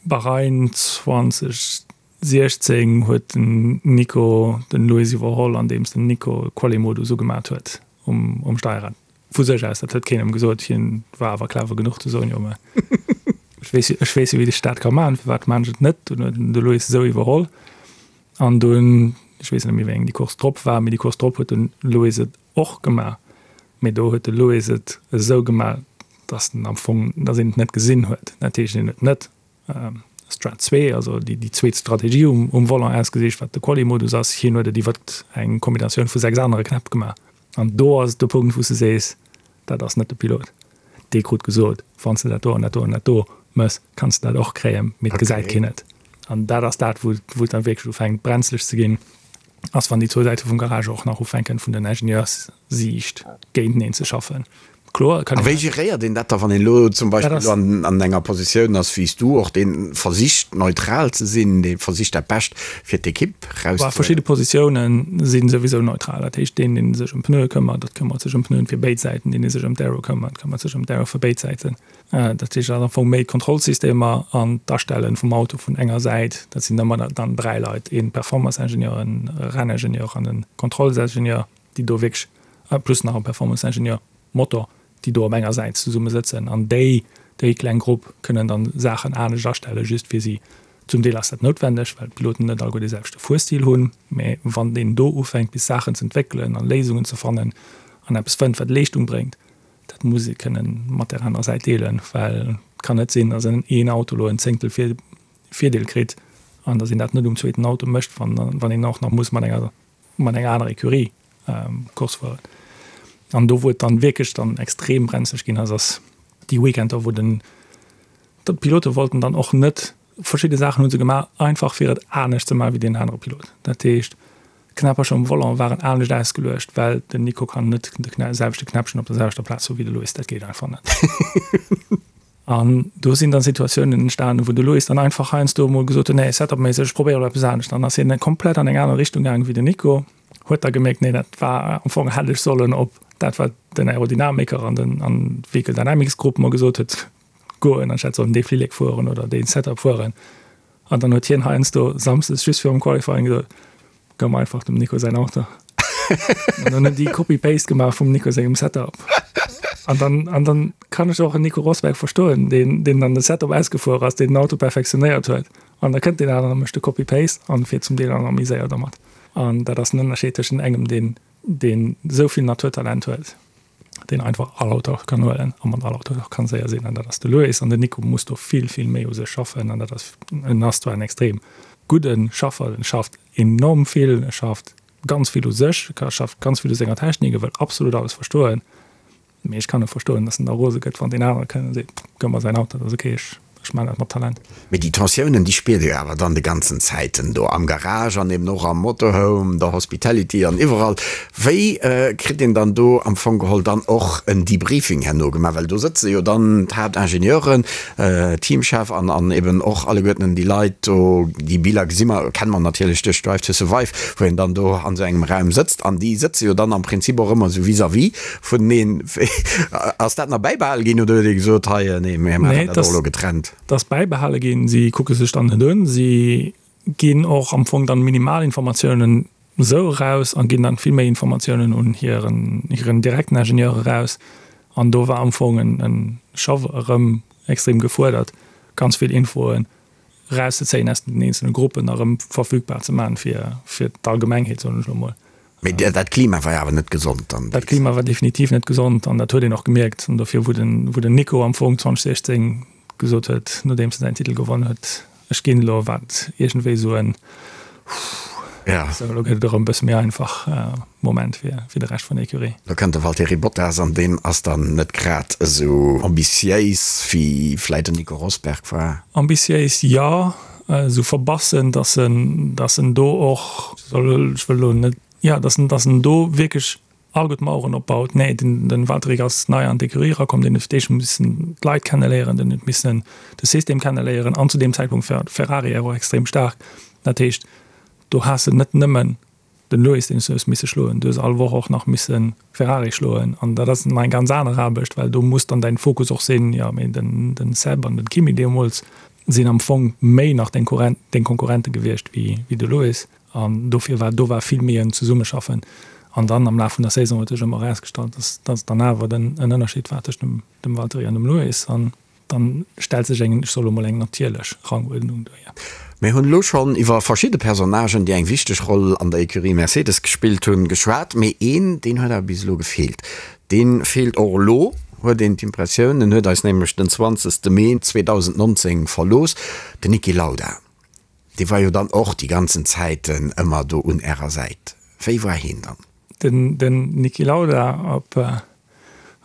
Bahrain 2016 huet den Nico den Lewis iwwerholl, andeems den Nico Quali-Modus ugemat huet um, um Steierrad. Vu sech aus, dat huet keen em gesot. Hien war awer clever genuch ze soen, jo mä ech weess, ech weess jo wéi ech dat ka maachen, firwat maan ech et net? Dunn huet en de Lewis esou iwwerholl. An dunn, ech weess net méi wéi eng déi Course drop war, mee déi Course drop huet den Lewis et och gemaach, mee do huet de Lewis et esou gemaach, dass en am Fong, dass een et net gesinn huet. Dat heescht, en huet net Strat 2, also déi déi zweet Strategie um um Volant ausgesicht, wat de Quali-Modus ass, hien huet et iwwer eng Kombinatioun vu 6 anere Knäpp gemaach. An do ass et de Punkt, wou s de sees, dat ass net de Pilot. Dee krut gesot, wann s de dat do an dat do an dat do mëss, kanns de dat och kréien, mee et gesäit keen et. An dat ass dat, wou wou et dann wierklech ufänkt brenzlech ze ginn. ass, wann déi zwou Säite vum Garage och nach ufänken, vun den Ingenieurs-Siicht géinteneen ze schaffen. Kloer, et kann een. A wéi geréiert een dat da, wann een elo zum Beispill elo an enger Positioun ass wéi s du och, dee versicht neutral ze sinn, dee versicht dat Bescht fir d'Ekipp erauszehuelen? Verschidde Positioune si souwisou neutral. Dat heescht, deen, dee sech ëm Pneue këmmert, dat këmmert sech ëm Pneuen fir béid Säiten, deen, dee sech ëm d'Aero këmmert, këmmert sech ëm d'Aero fir béid Säiten. Dat heescht, et ass am Fong méi d'Kontrollsystemer an d'Astelle vum Auto vun enger Säit. Dat sinn ëmmer dann 3 Leit, ee Performance-Ingenieur, e Renningenieur an e Kontrollsingenieur, déi do wierklech, plus nach e Performance-Ingenieur Motor, déi do op enger Säit zesumme sëtzen. An déi, déi kleng Grupp kënnen dann Saachen anescht astellen, just fir si. Zum Deel ass dat noutwendeg, well d'Piloten net alleguer dee selwechte Fuerstil hunn. Mä wann een do ufänkt, bis Saachen ze entwéckelen a Léisungen ze fannen an eppes fënnt, wat Leeschtung bréngt, Dat muss ee kënnen mat där anerer Säit deelen, well et kann net sinn, datt een Auto elo en Zéngtel Virdeel kritt an datt een dat net um zweeten Auto mécht, wann een och nach muss mat enger mat enger anerer Ecurie Course fueren. An do wou et dann wierklech dann extrem brenzlech ginn ass, ass déi Weekender, wou den d'Pilote wollten dann och net, verschidde Saachen hu se gemaach, einfach fir et anescht ze maachen wéi deen anere Pilot. Dat heescht, D'Knäppercher um Volant waren anescht ausgeluecht, well den Nico kann net de selwechte Knäppchen op der selwechter Plaz hu wéi de Louis, dat geet einfach net. An do sinn dann Situatiounen entstanen, wou de Louis dann einfach heiansdo emol gesot huet, nee, Setup-méisseg, ech probéiere elo eppes anescht. Dann ass hien komplett an eng aner Richtung gaangen wéi den Nico, huet da gemierkt, nee, dat war am Fong hätt ech sollen op dat, wat den Aerodynamiker an den an d'Vehicle Dynamics Grupp mer gesot huet, goen, anstatt sollen dee Flillek fueren oder dee Setup fueren. An dann huet hien heiansdo samsdes just virum Qualifying gesot, Gëmm einfach dem Nico säin Auto. An dann hunn déi Copy-Paste gemaach vum Nico sengem Setup. An dann, an dann kann ech och en Nico Rosberg verstoen, deen, deen dann de Setup ausgefuer ass, deen den Auto perfektionéiert huet. An da kënnt deen aneren a mécht de Copy-Paste an fiert zum Deel dann nach méi séier dermat. An dat ass den Ënnerscheed tëschent engem, deen, deen esou vill Naturtalent huet, deen einfach all Auto kann huelen a mat all Auto och kann séier sinn, an dat ass de Lewis. An den Nico muss do vill, vill méi u sech schaffen. An dat ass, en ass zwar en extrem gudde Schaffer, en schafft enorm vill, e schafft ganz vill u sech, e schafft ganz vill u senger Technik, e wëll absolut alles verstoen. Mee ech kann och verstoen, datt en da rose gëtt, wann deen anere kënnt a seet, Gëff mer säin Auto, dat ass ok, ech ech maachen dat mat Talent. Mee déi Tensiounen, déi spiert Dir awer dann de ganzen Zäiten do am Garage an eben och am Motorhome, der Hospitality an iwwerall. Wéi kritt een dann do am Fong geholl dann och en Debriefing herno gemaach? Well do sëtze jo dann d'Haaptingenieuren, Teamchef an an eben och alleguerten déi Leit do. Déi Biller gesi mer, kenne mer natierlech duerch Drive to Survive, wou een dann do an esou engem Raum sëtzt an déi sëtze jo dann am Prinzip och ëmmer esou vis-à-vis Vuneneen. Ass dat nach bäibehale ginn oder huet ee gesot, hei, nee, mir maachen dat och elo getrennt? Dat ass bäibehale ginn. Si kucke sech dann net un. Si ginn och am Fong dann minimal Informatiounen esou eraus a ginn dann vill méi Informatiounen un hiren, hiren direkten Ingenieur eraus. An do war am Fong en scho erëm extrem gefuerdert, ganz vill Infoen erauszezéien aus den eenzele Gruppen a rëm verfügbar ze maachen fir, fir d'Allgemengheet, soen ech elo mol. Mee dat Klima war jo awer net gesond dann. Dat Klima war definitiv net gesond an dat huet een och gemierkt. An dofir, wou den, wou den Nico am Fong 2016 gesot huet, nodeems en säin Titel gewonn huet, Ech ginn elo, war et iergendwéi esou en Huuh, sou elo gëtt et erëm e bësse méi einfach Moment fir, fir de Rescht vun der Ecurie. Lo kënnt de Valtteri Bottas an deen ass dann net grad esou ambitiéis wéi vläit den Nico Rosberg war. Ambitiéis jo, esou verbassen, dass en, dass en do och, ech wëll elo net, jo, dass en, dass en do wierklech all gutt Maueren opbaut. Nee, den, den Valtteri ass nei an d'Ecurie erakomm, deen huet fir d'éischt missen d'Leit kenneléieren, den huet missen de System kenneléieren an zu deem Zäitpunkt war Ferrari och extrem staark. Dat heescht, do has de net nëmmen den Lewis, deen s du hues misse schloen, du hues all Woch och nach misse Ferrari schloen an dat ass nach eng ganz aner Aarbecht, well do muss dann däin Fokus och sinn, jo mee den, den Seb an den Kimi deemools sinn am Fong méi nach deng Konkurrent, deng Konkurrente gewiescht wéi, wéi de Lewis an dofir war do war vill méi en Zesummeschaffen an dann am Laf vun der Saison huet sech ëmmer erausgestallt, dass, dass dann awer den en Ënnerscheed war tëscht dem, dem Valtteri an dem Lewis an Dann stellt sech eng, ech soe lo mol, eng natierlech Ranguerdnung duer. Mir hunn elo schonn iwwer verschidde Personnagen, déi eng wichteg Roll an der Ecurie Mercedes gespillt hunn, geschwat. Mee een, deen huet awer bis elo gefeelt. Dee feelt och elo, huet een d'Impressioun. En huet eis nämlech den 20. Mee 2019 verlooss, den Niki Lauda. Dee war jo dann och déi ganzen Zäiten ëmmer do un Ärer Säit. Wéi war heen dann? Den Niki Lauda, op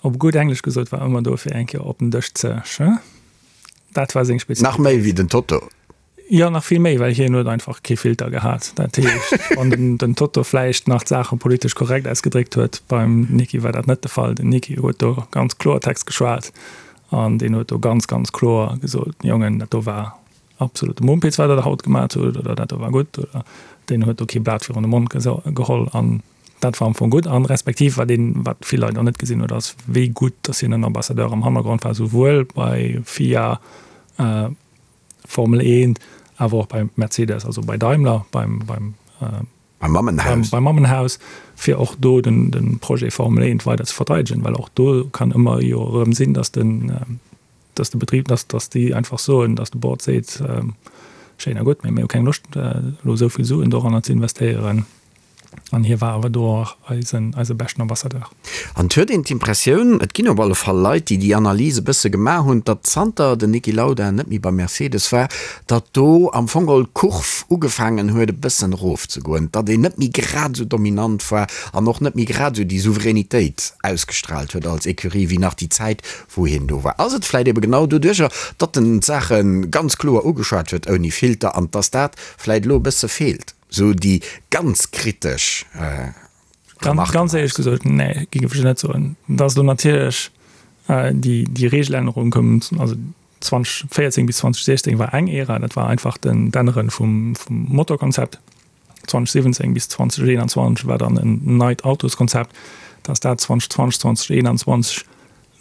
Op gutt Englesch gesot, war ëmmer do fir eng Kéier op den Dësch ze sch. Dat war seng Spezialitéit. Nach méi wéi den Toto? Jo, nach vill méi, well hien huet einfach kee Filter gehat. Dat heescht, wann den, den Toto vläicht nach d'Saache politesch korrekt ausgedréckt huet, beim Niki war dat net de Fall. Den Niki huet do ganz Kloertext geschwat an deen huet do ganz, ganz kloer gesot, Jongen, dat do war absolute Mumpitz, wat der da haut gemat hutt, oder dat do war gutt, oder deen huet do kee Blat virun de Mond geholl an Dat war am Fong gutt. An respektiv, wat een, wat vill Leit och net gesinn huet, ass, wéi gutt datt hien en Ambassadeur am Hannergrond war, souwuel bei FIA, Formel 1, awer och bei Mercedes, also bei Daimler, beim, beim, Beim Mammenhaus. beim Mammenhaus, fir och do den, de Projet Formel 1 weider ze verteidegen, well och do kann ëmmer jo erëm sinn, datt den, dass de Betrib, dass, dass déi einfach soen, dass de Board seet, schéin a gutt, mee mir hu keng Loscht elo esou vill Suen doranner ze investéieren. An hie war awer do och eisen, eise beschten Ambassadeur. An et huet een d'Impressioun, et ginn op alle Fall Leit, déi déi Analys e bësse gemaach hunn, datt zanter den Niki Lauda net méi bei Mercedes war, datt do am Fong geholl d'Kurv ugefaangen huet e bëssen erofzegoen, datt een net méi grad esou dominant war an och net méi grad esou déi Souveränitéit ausgestraalt huet als Ecurie wéi nach déi Zäit, wou hien do war, ass et vläit ebe genau doduercher, datt en d'Saache ganz kloer ugeschwat huet, ouni Filter, an datt dat vläit elo e bësse feelt, esou déi ganz kritesch Remarken. Ganz éierlech gesot, nee, géif ech net soen. Et ass elo natierlech déi, déi Regelännerung koum, also 2014 bis 2016 war eng Ära, dat war einfach den, d'Ännere vum, vum Motorkonzept. 2017 bis 2021 war dann en neit Autoskonzept, dass dat 2020, 2021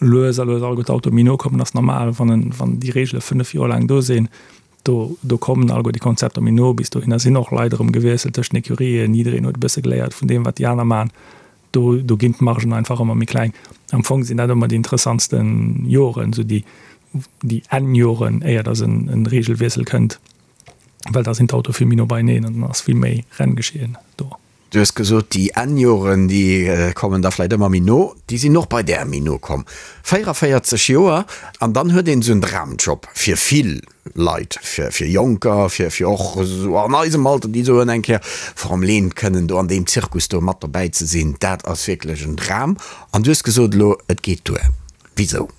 lues a lues alleguer d'Autoe méi no kommen, ass normal, wann en, wann déi Reegele 5 Joer laang do sinn. Do, do kommen alleguer déi Konzepter méi no. Bis dohinner sinn och Leit erëm gewiesselt tëscht den Ecurien. Jiddereen huet e bësse geléiert vun deem, wat déi aner maachen. Do, do ginn d'Margen einfach ëmmer méi kleng. Am Fong sinn dat ëmmer déi interessantste Joren, esou déi, déi Enn-Joren, éier dass en, en Regelwiessel kënnt, well da sinn d'Autoe vill méi no beieneen an dann ass vill méi Renngeschehen do. Du hues gesot, déi Enn-Joren, déi kommen da vläicht ëmmer méi no. Déi sinn och bei där méi no komm. 44 Joer, an dann huet een esou en Dramjob fir vill Leit, fir fir Jonker, fir fir och esou an eisem Alter, déi soen eng Kéier Formel 1 kënnen do an deem Zirkus do mat dobäi ze sinn, dat ass wierklech en Dram. An du hues gesot elo, et geet duer. Wisou?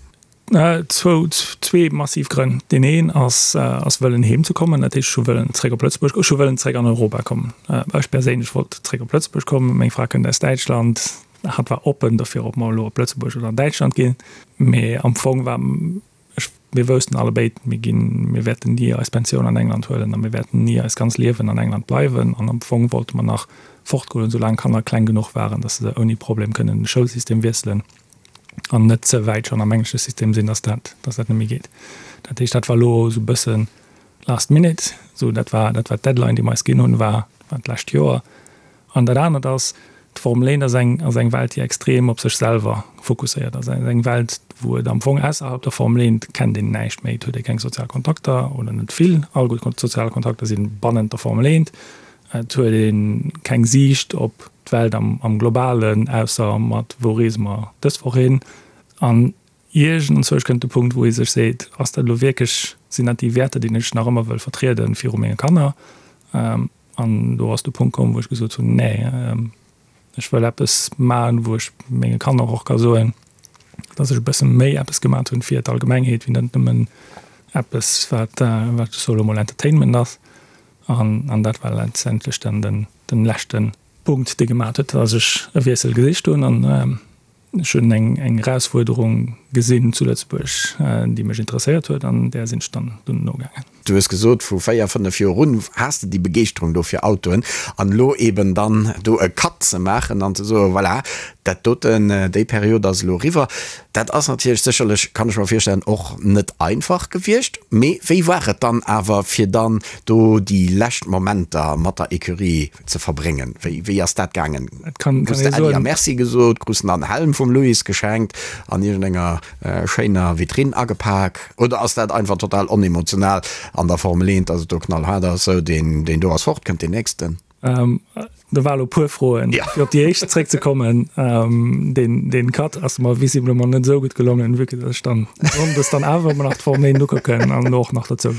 Zwou, zwee massiv Grënn. Deen een ass, ass wëllen heem ze kommen. Dat heescht, ech hu wëllen zréck op Lëtzebuerg, ech hu wëllen zréck an Europa kommen. Ech perséinlech wollt zréck op Lëtzebuerg kommen. Meng Fra kënnt aus Däitschland. Hatt war oppen dofir, ob mer elo op Lëtzebuerg oder an Däitschland ginn. Mee am Fong war, ech, mir woussten allebéid, mir ginn, mir wäerten ni eis Pensioun an England huelen a mir wäerten ni eist ganz Liewen an England bleiwen. An am Fong wollte mer nach fortgoen, soulaang d'Kanner kleng genuch waren, datt se ouni Problem kënnen de Schoulsystem wiesselen. an net ze wäit schonn am englesche System sinn, dass dat, dass dat net méi geet. Dat heescht, dat war elo esou e bësse last minute, esou dat war, dat war d'Deadline, déi mer eis ginn hunn, war, war d'lescht Joer. An dat anert ass, d'Formel 1 ass eng, ass eng Welt, déi extrem op sech selwer fokusséiert ass. Ass eng Welt, wou et am Fong ausserhalb der Formel 1 kennt een näischt méi, et huet ee keng sozial Kontakter oder net vill. All gutt sozial Kontakter si bannent der Formel 1. Et huet ee keng Siicht op d'Welt am Globalen, ausser mat wou reese mer dës Woch hin. An iergendzwousch kënnt de Punkt, wou ee sech seet, ass dat elo wierklech, sinn dat déi Wäerter, déi ech nach ëmmer wëll vertrieden viru menge Kanner? An do ass de Punkt komm, wou ech gesot hunn, nee, ech wëll eppes maachen, wou ech menge Kanner och ka soen, datt ech e bësse méi eppes gemat hunn fir d'Allgemengheet, wéi net nëmmen eppes, wat, wat ech soe lo mol Entertainment ass. An dat war letztendlech dann den, den leschte Punkt, dee gemat huet, dass ech e Wiessel gesicht hunn. An ech hunn eng, eng Erausfuerderung gesinn zu Lëtzebuerg, déi mech interesséiert huet, an där sinn ech dann dunn nogaangen. Du hues gesot, vu 4, 5 Joer un has de déi Begeeschterung do fir Autoen. An elo eben dann do e Cut ze maachen an ze soen, voilà, dat doten, déi Period ass elo eriwwer. Dat ass natierlech sécherlech, kann ech mer virstellen, och net einfach gewiescht. Mee wéi war et dann awer, fir dann do déi lescht Momenter mat der Ecurie ze verbréngen? Wéi, wéi ass dat gaangen? Krus de Äddi a Merci gesot? Krus de an Helm vum Louis geschenkt, an iergendenger schéiner Vitrinn agepak? Oder ass dat einfach total onemotional an der Formel 1, dass et do knallhaart ass, sou deen, deen do ass fort, kënnt deen nächsten? Do war elo e puer Froen. Ja. Fir op déi éischt zréckzekommen, deen, deen Cut ass mer visiblement net esou gutt gelongen, vue que dass ech dann sonndes dann awer ëmmer nach d'Formel 1 ukucken an och nach dozou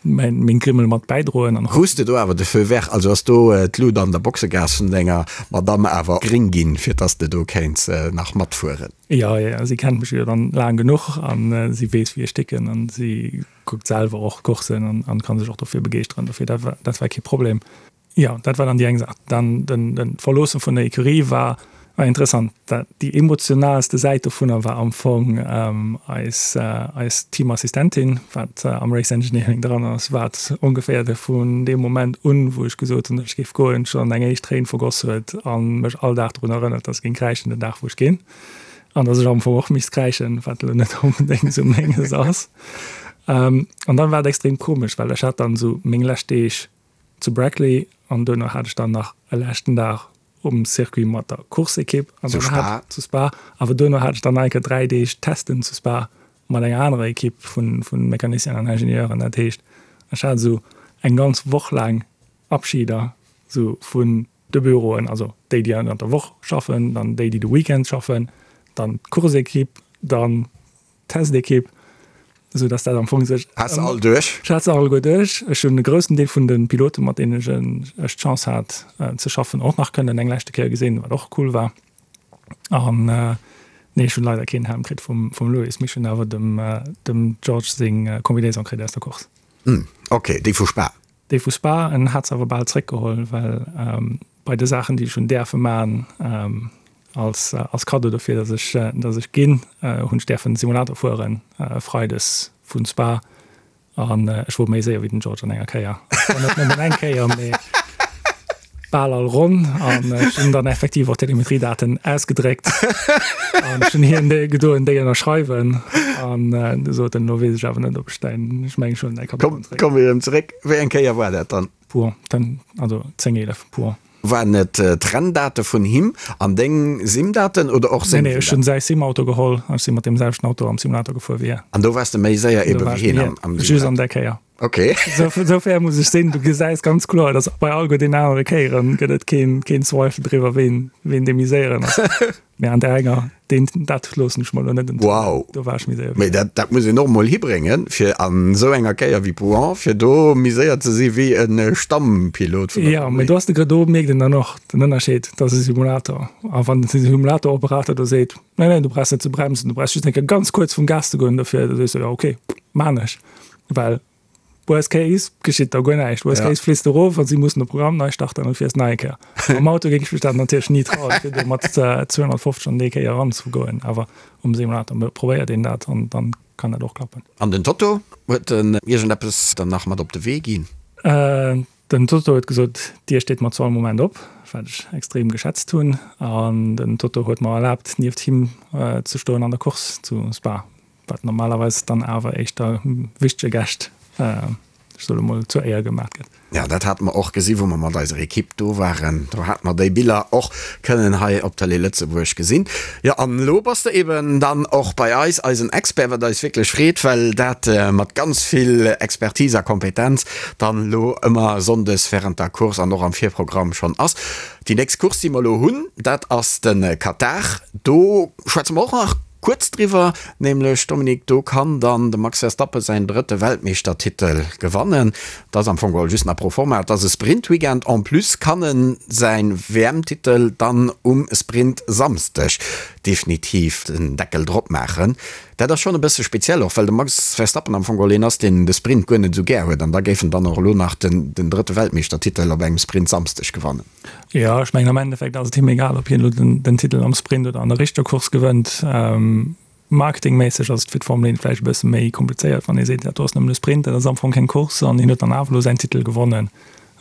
mäin, meng Grimmel mat bäidroen an. Krus de do awer de Feu vert, also ass do d'Lut an der Boxegaass vun denger Madamm awer gréng ginn, fir dass de do kéints nach matfueren? Jo, jo, si kennt mech jo dann laang genuch an si weess wéi ech ticken an si kuckt selwer och Coursen an, an kann sech och dofir begeeschteren. Dofir dat war, dat war kee Problem. Jo, dat war dann déi eng Saach. Dann den, den d'Verloosse vun der Ecurie war, war interessant. Dat, déi emotionalste Säit dovunner war am Fong ähm, eis, äh, eis Teamassistentin, wat äh, am Race Engineering dran ass, wat ongeféier de vun deem Moment un, wou ech gesot hunn, datt ech géif goen, schonn eng éischt Tréin vergoss huet a mech all Dag drun erënnert, datt ech géing kräischen den Dag, wou ech ginn. An datt ech am Fong och misst kräischen, wat elo net onbedéngt esou menges ass. An dann war et extrem komesch, well ech hat dann esou meng lescht Deeg zu Brackley an duerno hat ech dann nach e leschten Dag um Circuit mat der Course-Ekipp an Zu dann Spa. hat zu Spa. Awer duerno hat ech dann nach eng Kéier 3 Deeg Testen zu Spa mat enger anerer Ekipp vu vu Mecanicienen an Ingenieuren. Dat heescht, ech hat esou eng ganz Woch laang Abschieder esou vun de Büroen, also déi, déi ënnert der Woch schaffen, dann déi, déi de Weekend schaffen, dann d'Course-Ekipp, dann d'Test-Ekipp, esou dass dat am Fong sech. Has se all duerch? Ech hat se alleguer duerch. Ech hunn e groussen Deel vun de Piloten, mat deenen ech d'Chance hat ze schaffen, och nach kënnen eng leschte Kéier gesinn, wat och cool war. An nee, ech hunn leider keen Helm kritt vum Lewis, mee ech hunn awer dem George seng Combinaison kritt aus der Course. Ok, déi vu Spa. Déi vu Spa, en hat se awer bal zréckgeholl, well bei de Saachen, déi ech hunn däerfe man als als Kaddo dofir, datt ech datt ech ginn, hunn ech däerfen Simulator fueren freides vu Spa an ech wor méi séier wéi den George an enger Kéier. Zwar net nëmmen eng Kéier, mee. Bal all Ronn an ech hunn dann effektiv och d'Telemetriedaten ausgedréckt an ech hunn hien déi gedoen, déi ënnerschreiwen an du sot en, elo weess ech awer net, ob ech däin, ech mengen ech huelen däi Karton zréck. Komm erëm zeréck. Wéi eng Kéier war dat dann? Pouhon, ten, also 10, 11, Pouhon. Waren et d'Renndate vun him an deng Simdaten oder och seng Simdaten? Nee, nee, ech hunn säi Simauto geholl an ech si mat deem selwechten Auto am Simulator gefuer wéi hien. An do waars de méi séier ebe wéi hien am Simulator? Just an där Kéier. Ok. Sou fair muss ech sinn. Du gesäis ganz kloer, dass bei all den anere Kéieren gëtt et keen, keen Zweifel driwwer, ween, ween dee méi séieren ass. Mee an där enger, deen, dat loossen ech mer elo net entgoen. Wow. Do war ech méi séier. Mee dat, dat muss een och mol hibréngen, fir an esou enger Kéier wéi Pouhon, fir do méi séier ze si wéi e Stammpilot vun der Jo, mee do ass de Grë, do mierkt een dann och den Ënnerscheed, dat ass e Simulator. A wann de Simulatoroperator do seet, Nee, nee, du brauchs net ze bremsen, du brauchs just eng Kéier ganz kuerz vum Gas ze goen dofir, da sees du, jo, ok, maan ech. Well worst case geschitt da guer näischt. Worst ja. case fliss du erof an si mussen de Programm nei starten an fiers nei Kéier. Am Auto géing ech mech dat natierlech ni trauen, fir do mat 250 an déi Kéier eranzegoen. Awer um Simulator probéiert een dat an dann kann dat och klappen. An den Toto, huet en iergendeppes dann nach mat op de Wee ginn? Äh, den Toto huet gesot, d'Dier steet mer zu all Moment op, wat ech extrem geschätzt hunn. An den Toto huet mer erlaabt, nieft him ze stoen an der Course zu Spa. Wat normalerweis dann awer éischter wichtege Gäscht, ech soe lo mol, zur Éier gemaat gëtt. Jo, dat hate mer och gesi wou mer mat eiser Ekipp do waren. Do hate mer déi Biller och kënnen hei op Tëlee Lëtzebuerg gesinn. Jo, an elo bass de eben dann och bei eis, eisen Expert, wat eis wierklech freet, well dat mat ganz vill Expertise a Kompetenz dann elo ëmmer sonndes während der Course an och am Virprogramm schonn ass. Déi nächst Course, déi mer elo hunn, dat ass de Katar. Do schwätze mer och nach Kuerz driwwer, nämlech Dominique, do kann dann de Max Verstappen säin drëtte Weltmeeschtertitel gewannen. Dat ass am Fong geholl just nach pro forma, et ass e Sprint-Weekend. En plus kann en säin WM-Titel dann um Sprint-Samsdeg definitiv den Deckel drop maachen. Dat ass schonn e bësse speziell, och well de Max Verstappen am Fong geholl een ass, deen de Sprint guer net esou gär huet. An da géif en dann och elo nach den drëtte Weltmeeschtertitel op engem Sprint-Samsdeg gewannen. Jo, ech mengen am Endeffekt ass et him egal, ob hien elo den Titel am Sprint oder an der richteger Course gewënnt. Marketingméisseg ass et fir d'Formel 1 vläicht e bësse méi komplizéiert, wann ee seet, dat do ass nëmmen e Sprint, dat ass am Fong keng Course an hien huet dann awer elo säin Titel gewonnen.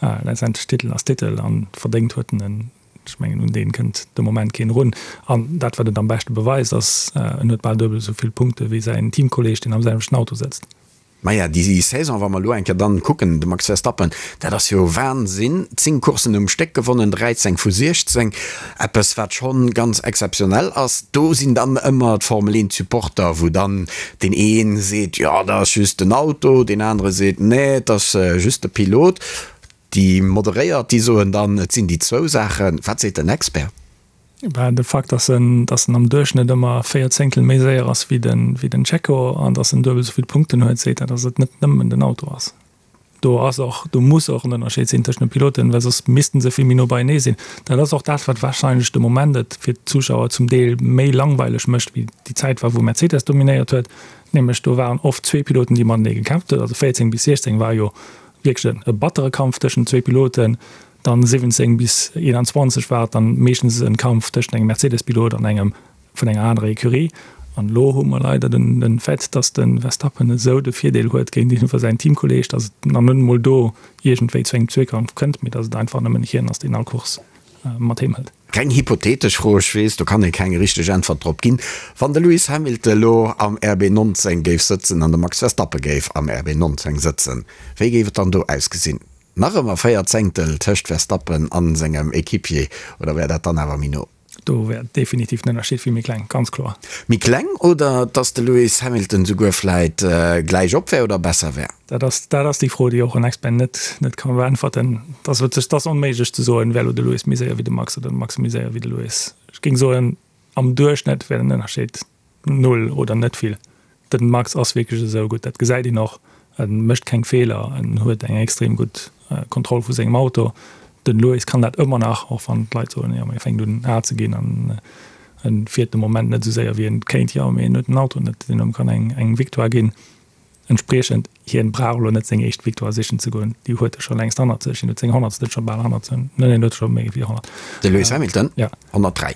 Letztendlech, Titel ass Titel an verdéngt huet en en. Ech mengen, un dee kënnt de Moment keen erun. An dat, wat et am beschte beweist, ass, en huet bal duebel esou vill Punkte wéi säin Teamkolleeg, deen am selwechten Auto sëtzt. Maja, déi Saison, wa mer elo eng Kéier dann kucken, de Max Verstappen, dat ass jo Wahnsinn, 10 Courssen um Stéck gewonnen, 13 vu 16, eppes wat schonn ganz exzeptionell ass. Do sinn dann ëmmer d'Formel 1 Supporter, wou dann deen ee seet, jo dat ass just den Auto, deen anere seet, nee et ass just de Pilot. Déi Moderéiert, déi soen dann, et sinn déi zwou Saachen. Wat seet den Expert? Ben, de Fakt, dass en, dass en am Duerchschnëtt ëmmer 4 Zéngtel méi séier ass wéi den, wéi den Checo an dass en duebel esou vill Punkten huet, seet dat, dass et net nëmmen den Auto ass. Do ass och, do muss och en Ënnerscheed sinn tëschent de Piloten, well soss missten se vill méi no beienee sinn. Dat ass och dat, wat warscheinlech de Moment et fir d'Zuschauer zum Deel méi langweileg mécht, wéi déi Zäit war, wou Mercedes dominéiert huet. Nämlech do waren oft zwee Piloten, déi matenee gekämpft huet. Also 14 bis 16 war jo wierklech e battere Kampf tëschent zwee Piloten. Dann 17 bis 21 war et dann meeschtens en Kampf tëschent engem Mercedes-Pilot an engem vun enger anerer Ecurie. An elo hu mer leider den den Fait, dass de Verstappen esou de Virdeel huet géintiwwer säin Teamkolleeg, dass et nach net emol do iergendwéi zu engem Zweekampf kënnt, mee dass et einfach nëmmen hien ass, deen all Course mat heem hëlt. Reng hypothetesch Fro, ech weess, do kann ee keng richteg Äntwert drop ginn, Wann de Lewis Hamilton elo am RB 19 géif sëtzen an de Max Verstappen géif am RB 19 sëtzen, wéi géif et dann do ausgesinn? Nach ëmmer 4 Zéngtel tëscht Verstappen an sengem Equipier, oder wär dat dann awer méi no? Do wär definitiv den Ënnerscheed vill méi kleng, ganz kloer. Méi kleng, oder dass de Lewis Hamilton souguer vläit gläich op wär oder besser wär? Dat ass, dat ass déi Fro, déi och en Expert net, net ka beäntwerten. Dat ass wierklech, dat ass onméiglech ze soen, wär elo de Lewis méi séier wéi de Max oder de Max méi séier wéi de Lewis. Ech géing soen, am Duerchschnëtt wär den Ënnerscheed null oder net vill. Den Max ass wierklech esou gutt, dat gesäit een och. En mécht keng Feeler, en huet eng extrem gutt Kontroll vu sengem Auto. Den Lewis kann dat ëmmer nach, och wann d'Leit soen, jo mee e fänkt un al ze ginn an en fiert de Moment net esou séier wéi en kéint. Jo mee en huet den Auto net, deen him kann eng eng Victoire ginn. Entspriechend, hien brauch elo net seng éischt Victoire sichen ze goen, déi huet e scho längst hannert sech. Hien huet seng honnertste scho bal hannert sech, nee en huet scho méi wéi 100. De Lewis Hamilton? Ja. 103.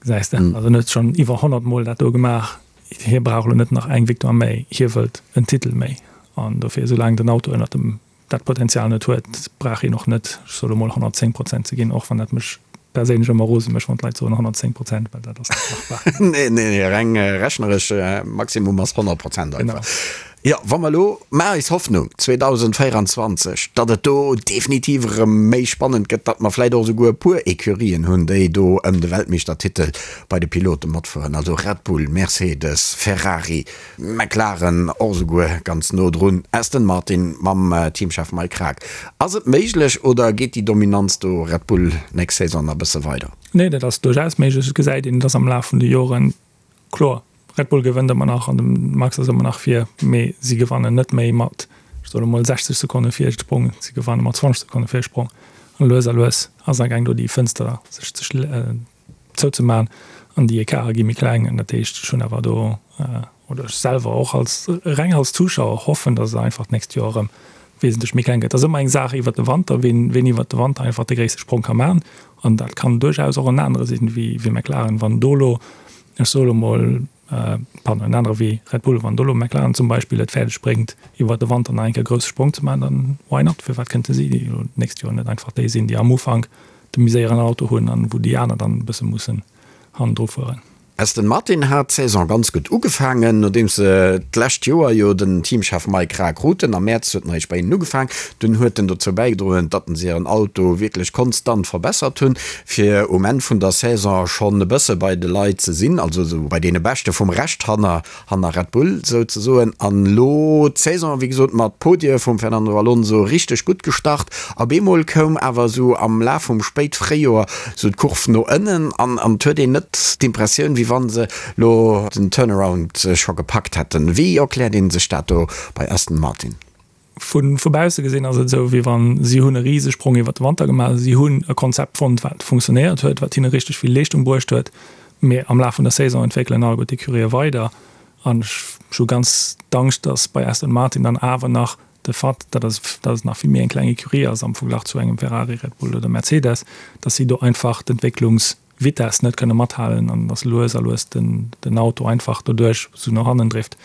Gesäis de, also en huet schonn iwwer 100 Mol dat do gemaach. Hie brauch elo net nach eng Victoire méi, hie wëllt en Titel méi. An dofir, soulaang den Auto ënnert dem. dat Potenzial net huet, brauch een och net, ech soe lo mol, 110 Prozent ze ginn, och wann dat mech perséinlech ëmmer rose mécht, wann d'Leit soen 110 Prozent, well dat ass net machbar. Nee, nee, nee, reng rechneresch, Maximum ass 100 Prozent einfach. Genau. Jo, wa mer elo, maache eis Hoffnung 2024, datt et do definitiv erëm méi spannend gëtt, datt mer vläicht och esouguer e puer Ecurien hunn, déi do ëm de Weltmeeschtertitel bei de Pilote matfueren, also Red Bull, Mercedes, Ferrari, McLaren och esouguer ganz no drun, Aston Martin mam Teamchef Mike Krack. Ass et méiglech oder geet déi Dominanz do Red Bull nächst Saison nach e bësse weider? Nee, dat ass duerchaus méiglech. Et gesäit een, datt am Laf vun de Joren, kloer, Red Bull gewënnt ëmmer nach an de Max ass ëmmer nach vir, mee si gewannen net méi mat, ech soe lo mol, 60 Sekonne Virsprong, si gewanne mat 20 Sekonne Virsprong. An lues a lues ass amgaang do déi Fënster sech ze zouzemaachen an déi Ecarte gi méi kleng. An dat heescht, ech hunn awer do, oder ech selwer och als reng als Zuschauer hoffen, datt et einfach d'nächst Joer erëm wesentlech méi kleng gëtt. Et ass ëmmer eng Saach iwwert de Wanter, wien wien iwwert de Wanter einfach de gréisste Sprong ka maachen. An dat kann duerchaus och en anere sinn wéi wéi McLaren. Wann do elo, ech soe lo mol, pardon, en anere wéi Red Bull, wann do elo McLaren zum Beispill et fäerdeg bréngt, iwwert de Wanter nach eng Kéier e grousse Sprong ze maachen, dann why not? Firwat kënnte si elo d'nächst Joer net einfach déi sinn, déi am Ufank de méi séieren Auto hunn an wou déi aner dann e bësse mussen hannendru fueren? Aston Martin hat d'Saison ganz gutt ugefaangen, nodeems se d'lescht Joer jo den Teamchef Mike Krack kruten. Am Mäerz huet en eréischt bei hinnen ugefaang. Dunn huet en dozou bäigedroen, datt se hiren Auto wierklech konstant verbessert hunn, fir um Enn vun der Saison schonn e bësse bei de Leit ze sinn, also esou bei deene Beschte vum Rescht hanner hanner Red Bull souzesoen. An elo d'Saison, wéi gesot, mat Podie vum Fernando Alonso richteg gutt gestart. Op eemol koum awer esou am Laf vum Spéitfréijoer esou d'Kurv no ënnen an an et huet een net d'Impressioun, wéi wann se elo den Turnaround scho gepackt hätten. Wéi erkläert ee sech dat do bei Aston Martin? Vu vu bausse gesinn ass et esou, wéi wann si hunn e Risesprong iwwer de Wanter gemaach. Si hunn e Konzept fonnt, wat funktionéiert huet, wat hinne richteg vill Leeschtung bruecht huet. Mee am Laf vun der Saison entwéckelen alleguer d'Ecurië weider. An ech hu ganz d'Angscht, datt bei Aston Martin dann awer nach de Fait, datt et datt et nach vill méi eng kleng Ecurie ass am Verglach zu engem Ferrari, Red Bull oder Mercedes, datt si do einfach d'Entwécklungsvitesse net kënne mathalen an datt lues a lues den den Auto einfach doduerch esou no hannen drift.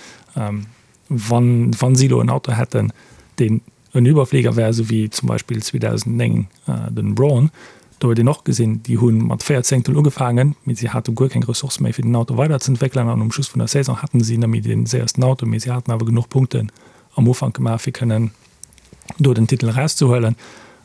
Wann, wann si elo en Auto hätten, deen en Überflieger wär, esou wéi zum Beispill 2009 den Brawn, do huet een och gesinn, déi hu mat 4 Zéngtel ugefaangen, mee si hate guer keng Ressourcë méi fir den Auto weiderzeentwéckelen an um Schluss vun der Saison haten si net méi dee séiersten Auto, mee si haten awer genuch Punkten am Ufank gemaach fir kënnen do den Titel erauszehuelen.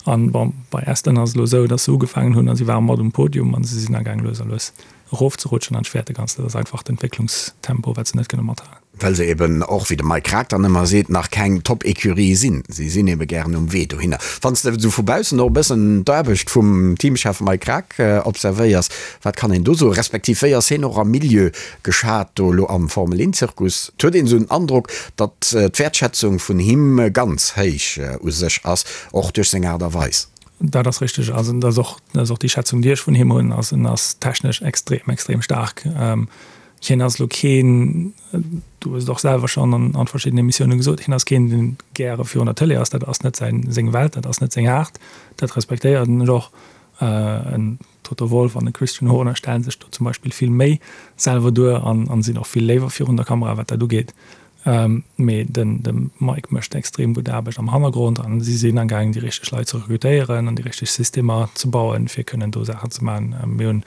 An bon, bei Aston ass et elo esou, datt se ugefaangen hunn a si ware mat um Podium a si sinn agaang lues a lues erofzerutschen an ech fäerte ganz, dat ass einfach d'Entwécklungstempo wat se net kënne mathalen. Well se eben och, wéi de Mike Krack dann ëmmer seet, nach keng Top-Ecurie sinn. Si sinn ebe gären um Wee dohinner. Wann s de esou vu baussen och e bëssen d'Aarbecht vum Teamchef Mike Krack observéiers, wat kann een do soen? Respektiv wéi ass hien och am Milieu geschat do elo am Formel-Een-Zirkus? Et huet een esou den Androck, datt d'Wäertschätzung vun him ganz héich u sech ass, och duerch seng Aart a Weis. Dat ass richteg. Also dat ass och, dat ass och déi Schätzung, déi ech vun him hunn. Also en ass technesch extrem, extrem staark. Hien ass elo keen, du hues et och selwer schonn an an verschiddenen Emissiounen gesot, hien ass keen, deen gäre virun der Tëlee ass. Dat ass net säin, seng Welt, dat ass net seng Aart. Dat respektéieren ech och. En Toto Wolff an e Christian Horner stellen sech do zum Beispill vill méi selwer duer an an sinn och vill léiwer virun der Kamera, wat dat ugeet. Mee den de Mike mécht extrem gutt Aarbecht am Hannergrond an si sinn amgaangen, déi richteg Leit ze rekrutéieren an déi richteg Systemer ze bauen, fir kënnen do Saachen ze maachen. Mir hunn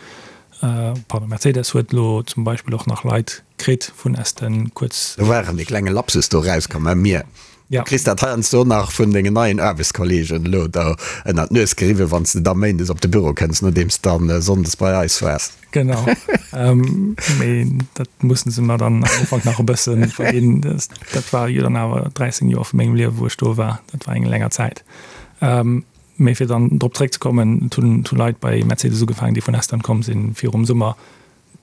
Pardon, Mercedes huet elo zum Beispill och nach Leit kritt vun Aston kuerz. Do war erëm dee klenge Lapsus do erauskomm, mä mir, du kriss dat heiansdo nach vun dengen neien Aarbechtskollegen elo do ënnert d'Nues geriwwen, wann s de da méindes op de Büro kënns, nodeems s dann sonndes bei eis waars. Genau, mee dat mussen se mer dann am Ufank nach e bësse verginn. Dat war jo dann awer 13 Joer vu mengem Liewe wou ech do war, dat war eng länger Zäit. Mee fir dann drop zréckzekommen, et hunn Leit bei Mercedes ugefaangen, déi vun Aston komm sinn virum Summer,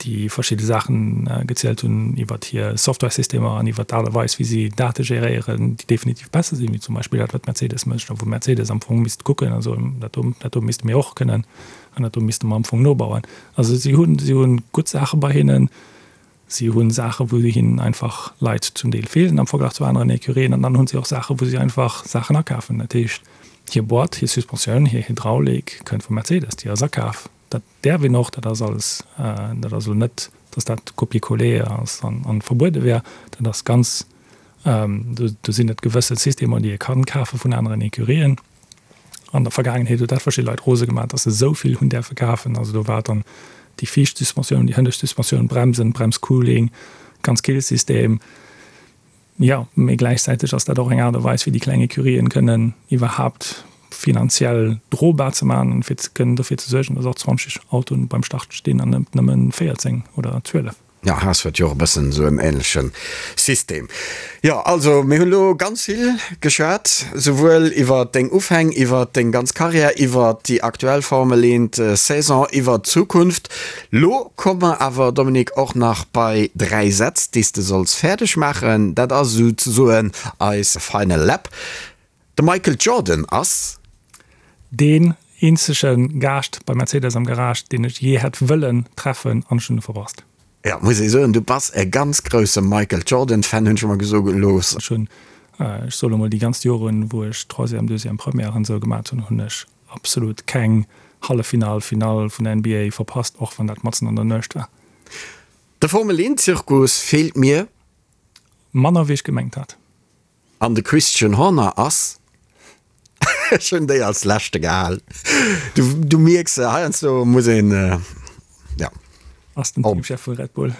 déi verschidde Saachen gezielt hunn iwwert hir Softwaresystemer an iwwert d'Aart a Weis, wéi si Date geréieren, déi definitiv besser sinn, wéi zum Beispill dat, wat Mercedes mécht a wou Mercedes am Fong misst kucken a soen, dat do, dat do misste mir och kënnen an dat do misste mer am Fong nobauen. Also si hunn, si hunn gutt Saache bei hinnen. Si hu Saachen, wou hinnen einfach Leit zum Deel feelen am Verglach zu aneren Ecurien. An dann hu si och Saachen, wou si einfach Saachen akafen. Dat heescht, hir Boîte, hir Suspensioun, hir Hydraulik kënnt vu Mercedes, déi ass akaf. Dat däerf een och, dat ass alles, dat ass elo net, datt dat Copier-coller ass an verbuede wär. Dat ass ganz. Do sinn et gewësse Systemer, déi ee kann kafe vun aneren Ecurien. An der Vergaangenheet huet dat verschidde Leit rose gemaach, dass se esou vill hunn däerfe kafen. Also do war dann déi viischt Suspensioun, déi hënnescht Suspensioun, Bremsen, Bremscooling, ganz Killsystem. Jo, mee gläichzäiteg ass dat och eng Aart a Weis, fir déi kleng Ecurien kënnen iwwerhaapt finanziell drobar ze maachen an fir kënnen dofir ze suergen, dass och 20 Autoen beim Start stinn an net nëmmen 14 oder 12. Jo, Haas huet jo och e bëssen esou en ähnleche System. Jo, also mir hunn elo ganz vill geschwat, souwuel iwwer deng Ufäng, iwwer deng ganz Karriär, iwwer déi aktuell Formel 1 Saison, iwwer d'Zukunft. Lo komme mer awer, Dominique, och nach bei 3 Sätz, déi s de solls fäerdeg maachen. Dat ass esouzesoen eis Final Lap. De Michael Jordan ass. Deen eenzege Gaascht bei Mercedes am Garage, deen ech jee hätt wëllen treffen, an ech hunn e verpasst. Jo, muss ee soen, du bass e ganz grousse Michael Jordan Fan, hunn ech mer gesoe gelooss. Ech hunn, ech soe lo mol, déi ganz Joren, wou ech Troisième, Deuxième, Première an esou gemat hunn, hunn ech absolut keng Halleffinall, Finall vun der NBA verpasst, och wann dat matzen an der Nuecht war. De Formel 1 Zirkus feelt mir. Manner wéi ech gemengt hat. An de Christian Horner ass, ech hunn déi als leschte gehal, du, du mierks, heiansdo muss een, ja. Ass den Teamchef vu Red Bull.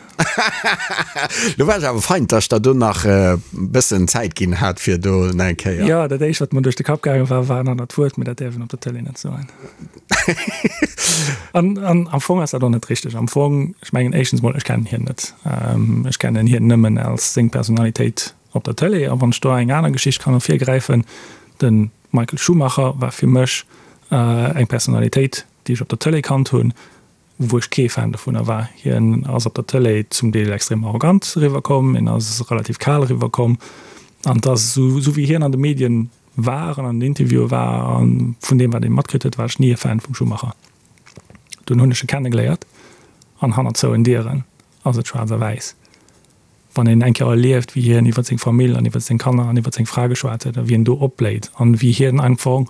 Lo war ech awer fein, dass ech der do nach e bëssen Zäit ginn hat, fir do nach eng Kéier. Jo, dat éischt, wat mer duerch de Kapp gaange war, war en anert Wuert, mee dat däerf een op der Tëlee net soen. An, an am Fong ass dat och net richteg. Am Fong, ech mengen éischtens mol, ech kennen hien net. Ech kennen hien nëmmen als seng Personalitéit op der Tëlee. A wann ech do eng aner Geschicht kann ervirgräifen, de Michael Schumacher war fir mech eng Personalitéit, déi ech op der Tëlee kannt hunn, wou ech kee Fan dovunner war. Hien ass op der Tëlee zum Deel extrem arrogant eriwwerkomm, hien ass relativ kal eriwwerkomm an et ass esou, esou wéi hien an de Medien war an an den Interviewe war a vun deem wat ee matkritt huet, war ech ni e Fan vum Schumacher. Dunn hunn ech e kennegeléiert an hannert zouen Dieren ass et schwaarz a wäiss. Wann een eng Kéier erlieft, wéi hien iwwer seng Famill an iwwer seng Kanner an iwwer seng Fra geschwat huet a wéi en do opbléit an wéi hien einfach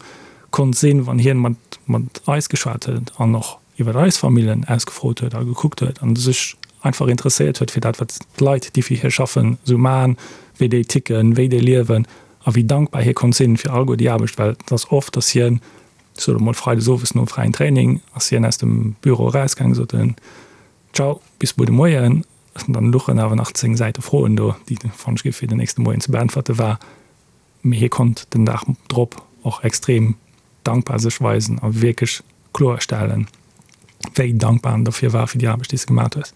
konnt sinn, wann hien mat, mat eis geschwat huet an och iwwer eis Famillen ausgefrot huet a gekuckt huet an sech einfach interesséiert huet fir dat, wat d'Leit, déi fir hie schaffen, esou maachen, wéi déi ticken, wéi déi liewen a wéi dankbar hie konnt sinn fir alleguer déi Aarbecht, well et ass oft, dass hien, ech soe lo mol freides owes nom fräien Training, ass hien aus dem Büro erausgaangen, sot en, Ciao, bis muer de Moien. An dann luchen awer nach 10 Säite Froen do, déi fannt ech gi fir den nächste Moien ze beäntwerte war. Mee hie konnt den Dag drop och extrem dankbar sech weisen a wierklech kloerstellen, wéi dankbar en dofir war fir déi Aarbecht, déi s de gemat hues.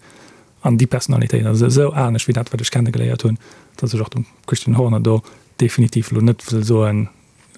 An déi Personalitéit ass esou anescht wéi dat, wat ech kennegeléiert hunn, datt ech och dem Christian Horner do definitiv elo net wëll soen,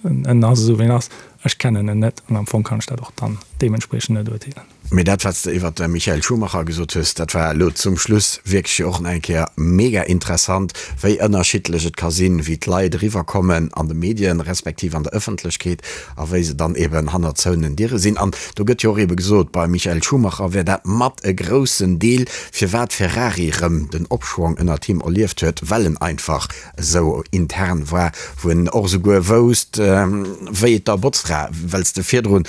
En ass esou wéi en ass. Ech kennen en net an am Fong kann ech dat och dann deementspriechend net urteelen. Mee dat wat s de iwwert de Michael Schumacher gesot hues, dat war elo zum Schluss wierklech jo och nach eng Kéier mega interessant, wéi ënnerschiddlech et ka sinn, wéi d'Leit eriwwerkommen an de Medien, respektiv an der Ëffentlechkeet a wéi se dann eben hannert zouenen Diere sinn. An do gëtt jo och ebe gesot, beim Michael Schumacher wär dat mat e groussen Deel, firwat Ferrari erëm den Opschwong ënnert him erlieft huet, well en einfach esou intern war, wou en och esouguer wousst, wéi et der Botzfra, well s de virdrun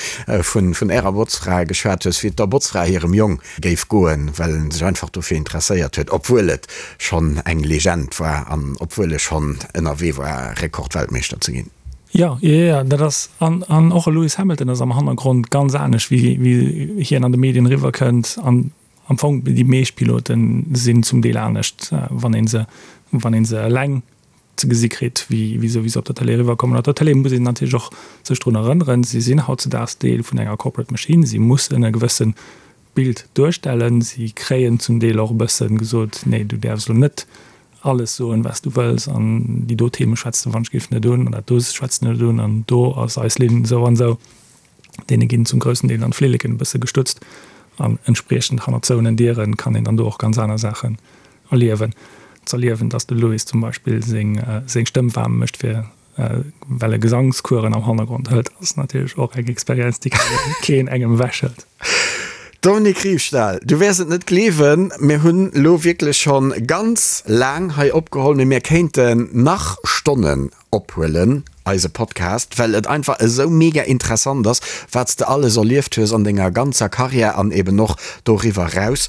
vun ärer Botzfra geschwat hues, wéi et der Botzfra hirem Jong géif goen, well en sech einfach dofir interesséiert huet, obwuel et schonn eng Legend war an obwuel e schonn ënnerwee war, Rekordweltmeeschter ze ginn. Jo, jo, jo, dat ass, an, an och e Lewis Hamilton ass am Hannergrond ganz anescht, wéi, wéi hien an de Medien eriwwerkënnt. An Am Fong, déi meescht Pilote sinn zum Deel anescht, wann ee se, wann ee se eleng ze gesi kritt, wéi wéi se wéi se op der Tëlee eriwwerkommen. Op der Tëlee muss een natierlech och sech drun erënneren, si sinn hautzedaags Deel vun enger Corporate Machine, si mussen e gewësse Bild duerstellen. Si kréien zum Deel och e bësse gesot, nee, du däerfs elo net alles soen, wat s du wëlls an déi do Theme schwätz de wann ech géif net un an dat do schwätz de net un an do ass eis Linn esou an esou. Deene ginn zum groussen Deel dann d'Flilleken e bësse gestutzt an entspriechend hannert zouenen Diere kann een dann do och ganz aner Saachen erliewen. Z'erliewen, dass de Louis zum Beispill seng seng Stëmm waarm mécht fir well e Gesangskueren am Hannergrond hëlt, ass natierlech och eng Experienz, déi keen engem ewechhëlt. Dominique Riefstahl, du wäers et net gleewen, mir hunn elo wierklech schonn ganz laang hei opgeholl, mee mir kéinten nach Stonnen ophuelen, eise Podcast, well et einfach esou mega interessant ass, wat s de alles erlieft hues an denger ganzer Karriär an eben och doriwwer eraus.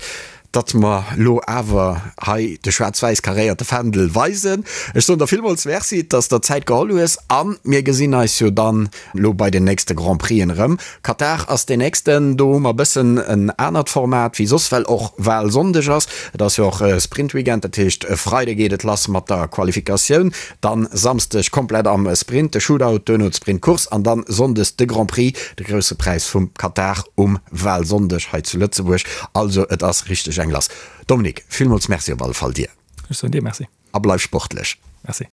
Datt mer lo awer hei de schwaarz-wäiss karéierte Fändel weisen. Ech soen der villmools Merci, datt s der Zäit geholl hues a mir gesinn eis jo dann lo bei den nächste Grand Prixen erëm. Katar ass deen nächsten, do hu mer e bëssen en anert Format wéi soss, well och Walsonndeg ass. Et ass jo och Sprintweekend, dat heescht e Freide geet et lass mat der Qualifikatioun, dann Samsdeg komplett am Sprint, de Shootout, duerno d'Sprintcourse an dann Sonndes de Grand Prix, de grousse Präis vum Katar um Walsonndeg hei zu Lëtzebuerg. Also et ass richteg eng lass. Dominique, villmools Merci op alle Fall dir. Ech soen dir Merci. A bleif sportlech. Merci.